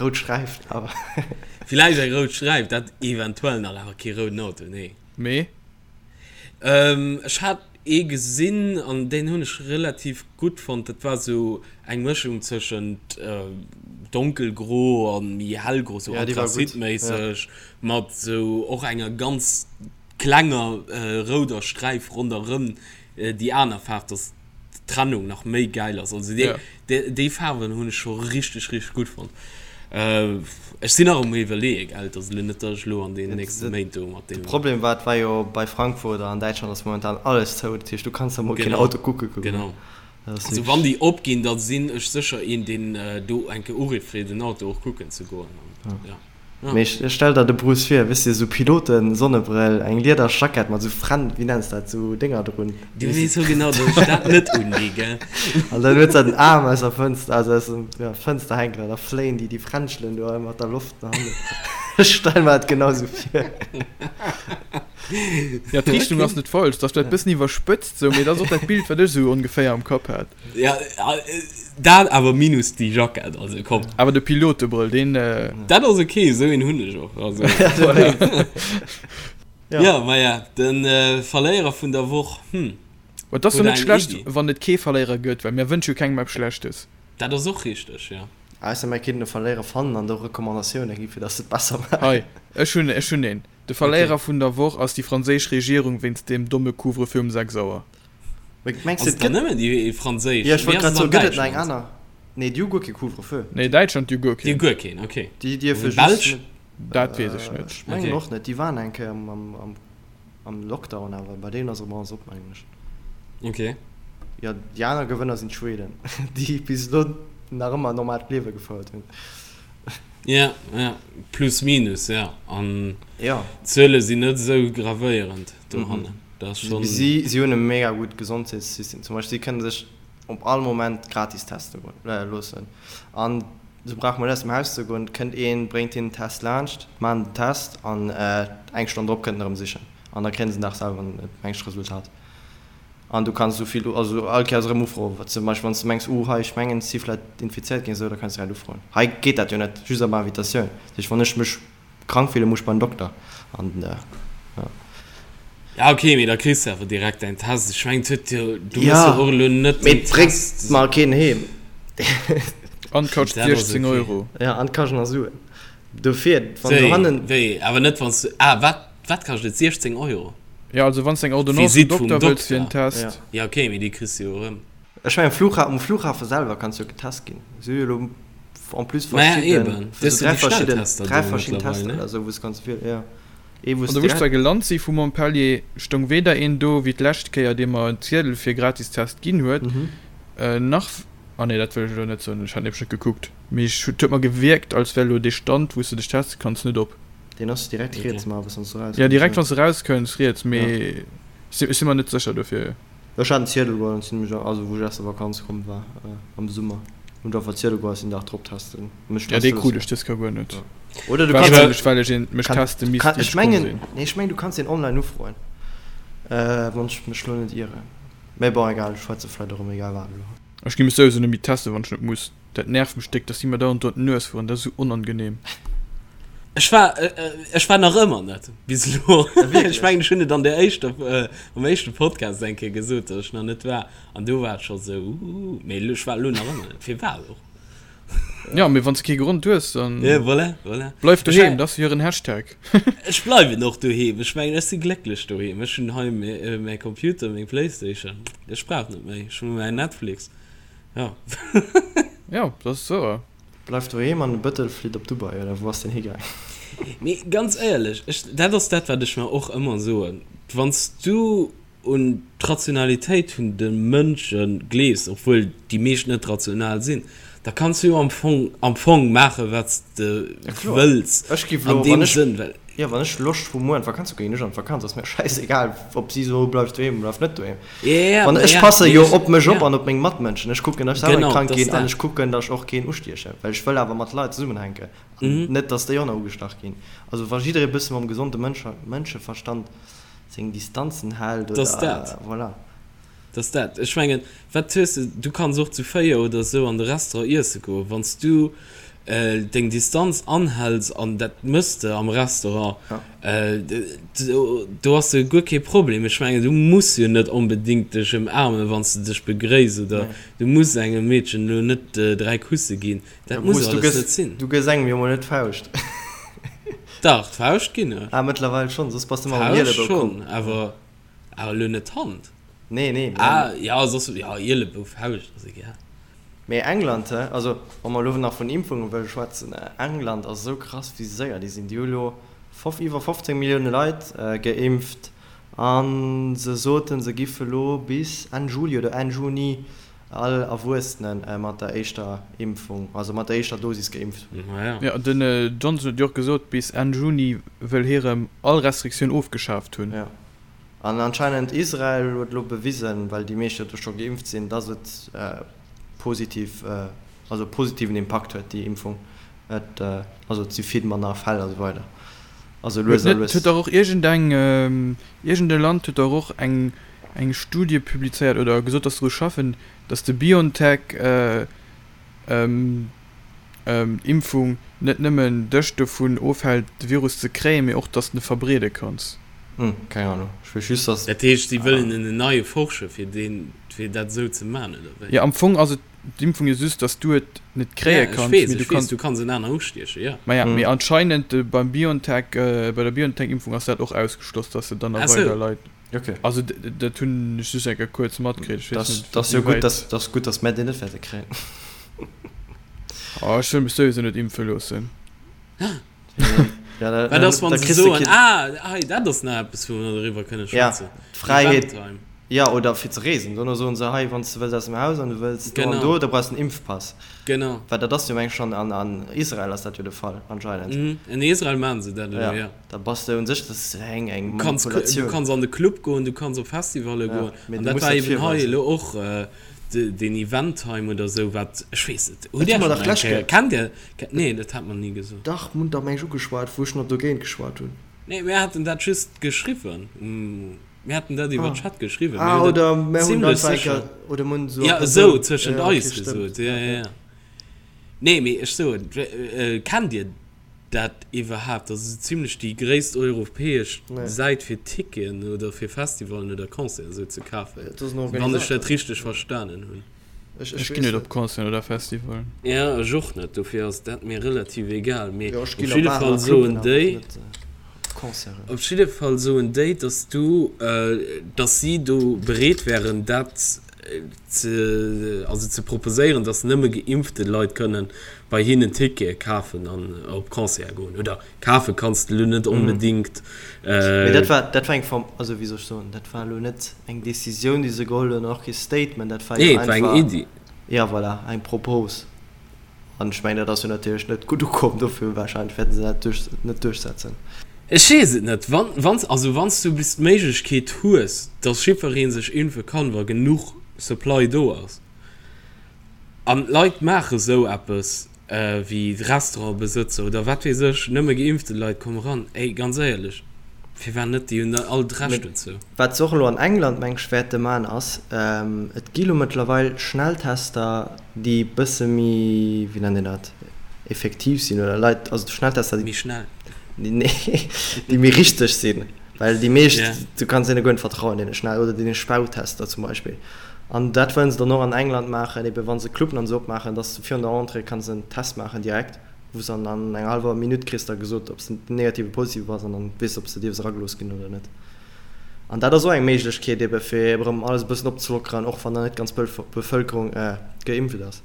Rout Sträif awer. Villäicht eng rout Sträif, dat eventuell nach, awer kee rouden Auto, nee. Mee? Ech hat ee gesinn an deen hunn ech relativ gutt fonnt. Dat war sou eng Mëschung tëschent donkelgro a méi hellgro, sou Ja, déi war gutt, ja. anthrazitméisseg, mat sou och enger ganz klenger rouder Sträif ronderëm déi aner Faarf, dass d'Trennung nach méi gäil ass. Also déi, déi, déi Faarwen hunn ech scho richteg, richteg gutt fonnt. Ech sinn nach um iwwerleeë, gell, et ass elo net, datt ech elo an deenen nächste Méint do mat De deem. Problem war, et war jo bei Frankfurt a an Däitschland ass momentan alles zou, dat heescht du kanns da mol keen Auto kucke goen. Genau. Dat ass Also wann déi opginn, da sinn ech sécher een, deen do eng Kéier urifft fir den Auto och kucken ze goen. An, ja. Mee ech stell der de Bruce vir, weess de, sou Piloten Sonnebrëll, eng lieder Jackett mat sou Fren, wéi nenns dat, sou Dénger drun. Du weess jo genau, datt ech dat net undinn, gell? An dann huet se den Aarm aus der Fënster, also aus dem, ja, Fënster hänken an da fléien déi déi Fränschelen do mat der Loft no hannen. Ech stell mer dat genau sou vir. Ja, d'Richtung ass net falsch, dat ass vläicht bëssen iwwerspëtzt sou, mee dat ass och dat Bild, wat ech sou ongeféier am Kapp hat. Ja, dat awer minus déi Jackett, also komm. Awer de Pilotebrëll, deen. Dat ass ok, esou een hunn ech och, also. Ja, maja, de Verléierer vun der Woch, hm. Et ass jo net schlecht, wann et kee Verléierer gëtt, well mir wënsche jo kengem eppes Schlechtes. Dat ass och richteg, jo. Ausser mär kéinten e Verléierer fannen an do Recommandatioune gi fir datt se et besser maachen. Hei, ech hunn, ech hunn een. De Verléierer vun der Woch ass déi franséisch Regierung wéinst deem domme Couvre-feu um 6 Auer. Mee mengs Ass de et et dann gëtt. nëmmen déi franséisch? Jo ech Wéi wollt ass grad et soen, an gëtt et nach eng Däitschland? aner? Nee déi hu guer kee Couvre-feu. Nee, Däitschland, déi hu guer Déi hu keen. guer keen, ok. Déi dierfe An just d'Belsch? net. Dat weess ech net. Ech mengen Ok. och net. Déi waren eng Kéier am am Lockdown, awer bei deenen ass erëm alles op, mengen ech. Ok. Jo, déi aner Gewënner sinn d'Schweden, déi bis elo nach ëmmer e normaalt Liewe gefouert hunn. Ja, ja, plus minus, ja. An Ja. d'Zuele sinn net esou gravéierend dohannen. Dat ass schonn. Si, si hunn e mega gutt Gesondheetssystem. Zum Beispill, si kënne sech op all Moment gratis teste loossen. An sou brauche mer net aus dem Haus ze goen. Et kënnt een, bréngt hinnen den Test laanscht, maachen den Test an eng Stonn drop kënnt en erëm sichen. An da kréien se den Dag selwer en mengt Resultat. An du kanns esou vill, also all Kéiers erëm ufroen. Zum Beispill wann s de mengs, uh hei ech mengen ech si vläit infizéiert ginn, esou, da kanns de direkt ufroen. Hei geet dat jo net, just op Invitatioun. Dat heescht wann ech mech krank fillen, muss ech bei den Dokter. An ja. Ja ok, mee da kriss de awer direkt däin Test. Ech mengen et huet jo, du muss jo och elo net Mee den et bréngt Test. mer keen heem. An et kascht Dat ass 16 ok. Euro. Ja, an et kascht nach Suen. Dofir, wann Wéi, dohannen. wéi, awer net wann s du, ah wat, wat kascht et? 16 Euro? Ja, also wann s de eng Ordonnance vum Visite vum Dokter wëlls fir en Dokter. Test. Ja ok, mee déi kriss du jo erëm. Ech mengen Flugha um Flughafe selwer kanns jo getest ginn. Si hu jo elo en plus Maja verschidden, eben, sou dës 3 déi verschidden, Schnelltester 3 do verschidden mëttlerweil, Tester ne? oder sou wou s kanns wielen, jo. Ee wou An s do wou ech direkt. zwar gelant si vu Montpellier, stoung weder een do wéi d'lescht Kéier dee mer en Ziedel fir gratis Test ginn huet, nach, ah nee dat wëll ech elo net soen, ech hat nämlech net gekuckt, mee ech et huet mer gewierkt als wär elo dee Stand wou s de dech teste kanns net op. Deen ass direkt riets ma wann s du Ja erauskënns, direkt jo. wann s de erauskënns riets, Ja. mee ech si mer net sécher dofir. Ech hat en Ziedel geholl an sinn mech, also wou ech aus der Vakanz komm war am Summer, hunn ech einfach Ziedel geholl a sinn den Dag drop testen, mech Ja teste dee krut loossen. ech dës Kéier guer net. Oder du kanns Wahrscheinlech well ech een mech kann, teste misst kann, ier ech ech komm mengen, sinn. nee ech mengen du kanns deen online ufroen, wann ech mech lo net ieren. Mee bon egal, ech schwätze vläit och ëm egal wat elo. Ech gi mech souwisou net méi testen wann ech net muss. Dat nervt mech déck, dass si mer dauernd do an d'Nues fueren, dat ass esou onangenehm. Ech war, ech war nach ëmmer net bis elo. Ech mengen ech hunn et an der éischter, am éischte Podcast eng Kéier gesot, datt ech nach net war an do war et scho sou, uuh, mee ech war elo nach ëmmer net. Firwat och? Ja, mee wann s de kee Grond hues, dann Ja, voilà, voilà. bleif Ech doheem, war, dat ass jo hiren Hashtag. ech bleiwen och doheem. Ech mengen ech si glécklech doheem. Ech hunn hei mäi Computer, meng Playstation, ech brauch net méi. Ech hu mäin Netflix. Ja. Ja, dat ass wouer. Bleift doheem an de Bëttel flitt op Dubai, oder wou ass deen higaang? Mee ganz éierlech, ech, dat ass dat, wat ech mer och ëmmer soen, Wann s du un d'Rationalitéit vun de Mënsche gleefs, obwuel déi meescht net rational sinn, da kanns du jo am Fong, am Fong maachen, wat s de Ja kloer. wëlls Ech giff an elo, wann deem ech, Sënn, well. jo, wann ech Loscht hu muer an d'Vakanz ze goen, ginn ech an d'Vakanz, ass mir schäisegal, ob si soe bleif doheem, bleif net doheem. Ja, Wann ech ja, passe mee jo ech, op mech op ja. an op meng Matmënschen. Ech kucken, datt ech selwer net Genau, krank dat ass ginn an dat. ech kucken, datt ech och keen ustiechen, well ech wëll awer mat Leit zesummenhänken an Mhm. net, datt déi och nach ugestach ginn. Also wa jidderee bësse mam gesonde Mënsche Mënscheverstand seng Distanzen hält Dat ass oder dat. voilà. Dat ass dat. Ech mengen, wat hues de, du kanns och zu 4 oder esou an de Restaurant iesse goen, wann s du deng Distanz anhäls, an dat mëss de am Restaurant, do ass jo guer kee Problem. Ech mengen, du muss jo net onbedéngt dech ëmaarmen, wann s de dech begréiss, oder du muss engem Meedchen elo net 3 Kusse ginn. Dat muss alles net sinn. Du gëss engem jo mol net d'Fauscht. Dach, d'Fauscht ginn ech. Ah, mëttlerweil schonn, soss bass de ëmmer mam D'Fauscht Ielebou komm. schonn, awer elo net d'Hand. Nee, nee. Ah, jo, soss, jo, Ielebou, Fauscht ass egal. Mee England, he, also wa mer elo nach vun Impfunge wëlle schwätzen, England ass esou krass wéi séier déi sinn. Déi hu elo iwwer 15 Millioune Leit geimpft a se soten, se giffe elo bis Enn Juli oder Enn Juni all Erwuessene mat der éischter Impfung, also mat der éischter Dosis geimpft hunn. Jo, den Johnson huet jo och gesot, bis Enn Juni wëll hie rëm all Restriktioun ofgeschaaft hunn. Jo. An anscheinend Israel huet elo bewisen, well déi meescht jo do scho geimpft sinn, dass et positiv, also positiven Impakt huet déi Impfung. Et, also et si vill manner Fäll a sou weider. Also Huet lues a net, lues. huet dach och iergendeng, iergend e Land huet dach och eng eng Studie publizéiert oder gesot, dass se dru schaffen, dass de Biontech Impfung net nëmmen dech dovun ofhält de Virus ze kréien, mee och dass de en verbreede kanns. Hm, keng Ahnung, ech weess just dass. Dat heescht si wëllen en neie forschen fir deen, fir dat esou ze man, oder wéi? Jo, am Fong ass et. D'Impfung jo just, dass du et net kréie Ja, ech kanns, weess, mee du ech weess, kanns. du kanns en aner ustiechen, jo. Maja, mee anscheinend beim BioNTech, bei der BioNTech-Impfung ass dat och ausgeschloss, dass se dann nach Ah sou. weider Leit. Okay. Also dat hunn ech just eng Kéier kuerz matkritt, ech weess net, Dat ass jo gutt, wéiwäit. dat ass gutt, dass mär déi net wäerte kréien. Oh, ech wëll mech souwisou net impfe loossen. Ja, da, Wat ass, wann da se kriss de soen, keen. ah, hei, dat ass nach eppes, wou mer doriwwer kënne Ja, schwätzen, d'Fräiheet, Eventtime. ja, oder fir ze reesen. Dono soen se, hei, wann s de wëlls aus dem Haus an du wëlls do an Genau. do, da brauchs de en Impfpass. Genau. Well dat ass jo, meng ech, schonn an, an Israel ass dat jo de Fall anscheinend. Mhm, in Israel maachen se dat elo, Ja, ja. da bass de un sech, dat ass eng, eng Du kanns, du Manipulatioun. kanns an de Club goen, du kanns op Festivalle Ja, goen. mee An du dat muss war dat eben hei virweisen. elo och deen Eventtime oder esou, wat, ech weess net, hutt Dat Dir hu mer schonn dach eng d'lescht Kéier, Kéier. kennt Dir, nee, dat hat mer ni gesot. Dach, mir hunn dach, meng ech, ugeschwat, wou ech nach dogéint geschwat hunn. Nee, mir haten dat just geschriwwen. Mir haten dat iwwer Ah. Chat geschriwwen. Ah, Mir hunn dat oder mir hunn zimlech einfach eng sécher. Kéier, oder mir hunn esou a Ja, esou Persoun. tëschent Ja, okay, eis stëmmt. gesot. Ja, Ja, ja, ja. ja. Nee, mee ech soen, kennt Dir dat iwwerhaapt? Dat ass esou zimlech déi gréisst europäesch Nee. Säit fir Ticketen oder fir Festivalen oder Concerten esou ze kafen, Dat ass en wann ech Organisator. dat richteg verstanen hunn. Ech, Ech ech ginn weess net op net. Concerten oder Festivalen. Ja, ech och net, dofir ass dat mir relativ egal. Mee Jo, ech op ginn op jidde Baren Fall a Cluben, soen awer déi, net op Concerten. op jidde Fall soen déi, dass du, dass si do bereet wären, dat ze, also ze proposéieren, dass nëmme geimpfte Leit kënnen bei hinnen Tickete kafen an op Concerte goen. Oder kafe kanns de elo net onbedingt. Mee dat war, dat war eng Form, also wéi soll ech soen, dat war elo net eng Decisioun, déi se geholl hunn, an och kee Statement, dat war jo Nee, et war eng einfach, Iddi. ja voilà, eng Propos. An ech mengen, dat ass jo natierlech net gutt ukomm, dofir wahrscheinlech wäerte se dat duerch, net duerchsetzen. Ech weess et net. Wann, wann, also wann s du bis d'Méiglechkeet hues, dass jiddweree sech impfe kann, wa genuch Supply do ass, an d'Leit maache sou eppes wéi Restaurantbesëtzer oder wat weess ech, nëmme geimpfte Leit komme ran, ey, ganz éierlech, firwat net? Déi hunn all d'Recht Mee dozou. wat se och elo an England, meng ech, wäerte man, ass, et gi lo mëttlerweil Schnelltester, déi bësse méi, wéi nennt een dat, effektiv sinn oder Leit, also Schnelltester, déi Méi schnell. Nee, déi méi richteg sinn, well déi meescht, Yeah. du kanns deene guer net vertrauen, deene Schnell oder deene Spautester zum Beispill. An dat wëllen se dann och an England maachen, ebe wa se Cluben an esou opmaachen, dass du virun der Entrée kanns en Test maachen direkt, wou s an an enger hallwer Minutt kriss da gesot, ob s de negativ oder positiv bass an dann weess de, ob s de dierfs eragelooss ginn oder net. An dat ass och eng Méiglechkeet ebe fir erëm alles e bëssen opzelockeren, och wann nach net d'ganz Bevëlkerung geimpft ass.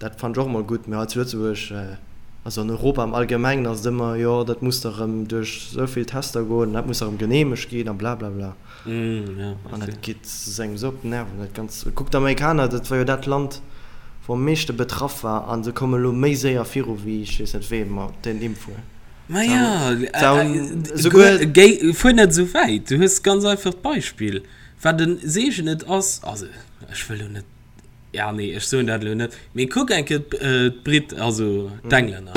Dat fannen ech och emol gutt. Mee hei zu Lëtzebuerg, also an Europa am Allgemengen ass et ëmmer, jo dat muss da rëm duerch esou vill Tester goen an dat muss da rëm geneemegt ginn a blablabla. An dat geet engem esou op d'Nerven, dat Ganzt. Kuck d'Amerikaner, dat war jo dat Land, wou am meeschte betraff war a se komme lo méi séier viru wéi ech weess net wee mat den Impfungen. Ma jo, fuer net esou wäit, du hues ganz einfach d'Beispill, wat e Seegen et ass, also ech wëll lo net, Ja, nee, ech soen dat elo net. Mee kuck eng Kéier d'Brit, also d'Englänner.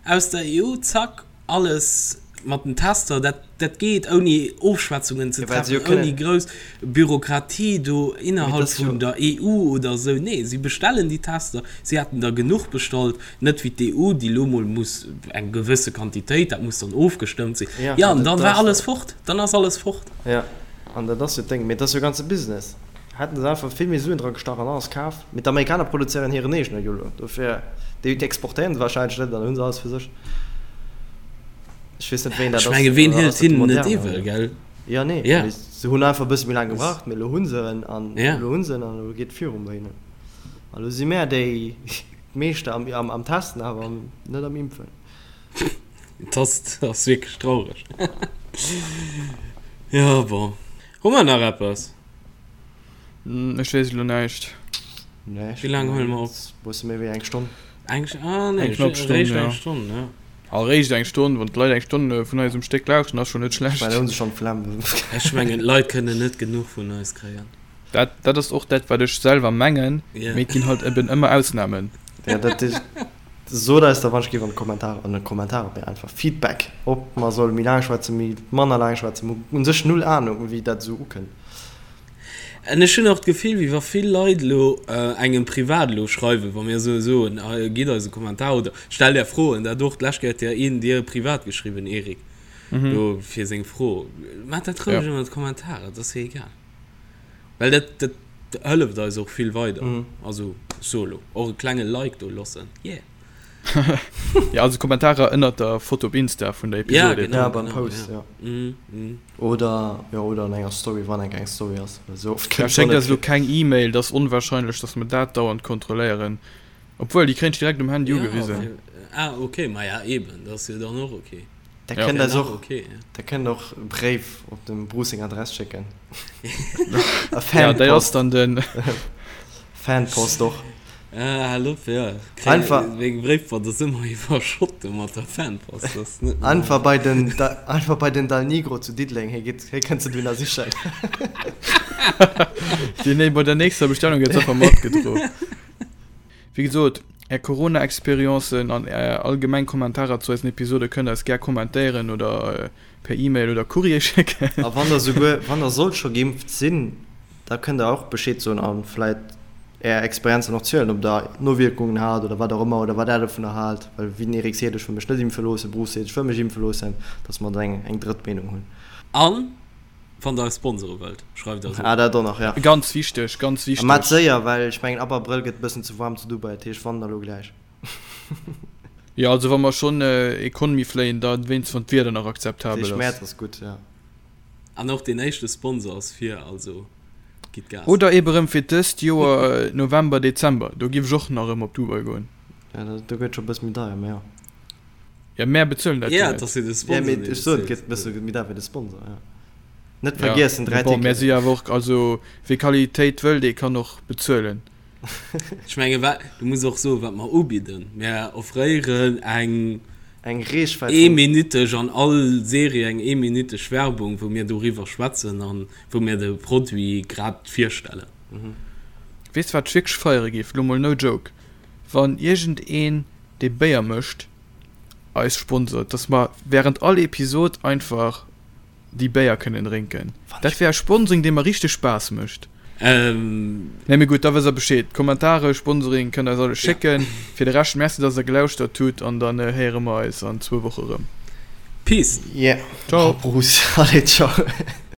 Aus der EU, zack, alles mat den Tester, dat, dat geet ouni Ofschwätzungen ze treffen, ouni grouss Bürokratie do innerhalb vun der EU oder esou. Nee, si bestellen déi Tester, si haten der genuch bestallt, net wéi d'EU, déi elo mol muss eng gewësse Quantitéit, dat muss dann ofgestëmmt sinn. Jo, an dann war alles fort, dann ass alles fort. Jo, an dat ass jo d'Déng. Mee et ass jo e ganze Business. Hätten se einfach vill méi Suen dra gestach an alles kaf. Mee d'Amerikaner produzéieren hiren eegene jo elo, dofir déi exportéieren se wahrscheinlech net an dann hu se alles fir sech. Ech weess net wéi een dat Ech ass. menge ween Oder hëlt ass dat de hinnen net Moderna iwwel, oder? gell? Jo nee, Ja. mee se hunn einfach e bësse méi laang gebraucht, mee elo hu se en an Ja. elo hu se en an elo geet et viru bei hinnen. An elo si mär déi Meeschter am am am Testen, awer am net am Impfen. Dat ass ass wierklech traureg. Jo bon. Hu mer nach eppes? Ech weess elo näischt. Nee, ech Wéi laang huele mer op? Bësse méi wéi eng Stonn. Eng, ah nee, Eng knapp Stonn, réischt ja. eng Stonn, ja. Ah, réischt eng Stonn, wann d'Leit eng Stonn vun eis um Stéck lauschten, ass schonn net Ech mengen, schlecht. da hu se schonn d'Flemm. Ech mengen, d'Leit kënnen net genuch vun eis kréien. Dat, dat ass och dat, wat ech selwer mengen, Ja. mee et ginn halt eben ëmmer Ausnamen. Ja, dat is. Sot eis da wann ech géif an de Kommentarer, an de Kommentarer, mee einfach Feedback, ob mer solle méi laang schwätzen, méi manner laang schwätzen. Mer hunn u sech null Ahnung, wéi dat esou ukënnt. An ech hunn och d'Gefill, wéi wa vill Leit elo engem privat elo schreiwen, wa mir esou soen, gitt eis e Kommentar oder stellt är Froen. Dat och, d'lescht Kéier huet jo een dir privat geschriwwen, Eric, do fir seng Fro. Maacht dat roueg ënner d'Kommentarer, et ass jo egal. Well dat, dat. Hëlleft eis och vill weider. Also ech soe lo och e klenge Like do loossen, yeah. Ja, also Kommentarer ënnert der Foto op Insta vun der Ja, Episode. genau, Ja, beim genau, Post, ja. ja. Mm, mm. Oder, jo, oder an enger Story, wann eng eng Story ass, well esou oft Ja, kënnt se och schéckt net eis elo vir. keng E-Mail, dat ass onwahrscheinlech, dass mer dat dauernd kontrolléieren. Obwuel, déi kréien ech direkt um Handy Ja, ugewisen. fir, ah, okay, ma ja, eben, dat ass jo dann och okay. Der Ja. kënnt Wär eis nach och, okay, ja. der kënnt och e Bréif op dem Bruce seng Adress schécken. A Ja, déi ass Fanpost. dann den. Fanpost och. Ah, hal op, ja. Kréien, Einfach. meng Bréifboîte ass ëmmer iwwerschott do mat der Fanpost, dat ass net normal. Einfach bei den, einfach bei den Dal Nigro zu Diddeleng, hie geet, hie kënnt se dohinner sichen. Déi, nee, bei der nächster Bestellung gëtt se einfach matgedro. Wéi gesot, Är Corona-Experiencen an Är allgemeng Kommentarer zu eisen Episode kënnt Der eis gär kommentéieren oder per E-Mail oder Courrier schécken. A wann Der souguer, wann Der sollt scho geimpft sinn, da kënnt Der och Bescheed soen a vläit Är Experienzen och zielen, ob Der Nowierkungen hat oder wat och ëmmer oder wat Der dovunner haalt. Well wéi den Eric seet, ech wëll mech net impfe loossen, Bruce seet, ech wëll mech impfe loossen, dass mer do eng, eng drëtt Meenung hunn. An wann der eis sponsere wëllt, schreift eis Ah, un. dat och nach, ja. Ganz wichteg, ganz A mat wichteg. séier, well ech mengen ab Abrëll gëtt e bëssen ze waarm zu Dubai, dat heescht wann da lo gläich. Jo, also wa mer schonn Economy fléien, da wéinst wann d'Wieder nach Dat akzeptabel heescht ass. Mäerz ass gutt, ja. An och deen éischte Sponsor ass vir, also gitt Gas. Oder ebe rëm fir dëst Joer November, Dezember, do giff ech och nach rëm op Dubai goen. Ja, do gëtt scho e bësse méi deier, mä jo. Ja, mär bezuelen dat jo Ja, net. et ass jo de Ja, Sponsor, mee dee ech soen, et bezilt. gëtt e bësse méi deier fir de Sponsor, ja. Net Ja, vergiessen, mee 3 bon, mär si Ticketen. jo awer och, also wie Qualitéit wëll, dee kann och bezuelen. Ech menge wa, du muss och soen, wat mer ubidden. Mär offréieren eng Eng Reechwäit vun. eeminüteg, an all Serie eng eeminüteg Werbung, wou mir doriwwer schwätzen an wou mir de Produit grad virstellen. Weess de wat ech wierklech feiere géif, lo mol no joke, wann iergendeen dee Béier mécht eis sponsort, dass mer während all Episod einfach déi Béier kënnen drénken. Dat wär e Sponsoring dee mer richteg Spaass mécht. Nee mee gutt, da wësst der Bescheed. Kommentare, Sponsoring kënnt der eis alles schécken. Fir de Rescht Merci dass der gelauschtert hutt an dann héiere mer eis an zwou Woche rëm. Peace! Yeah. Ciao! Bruce, allez, ciao.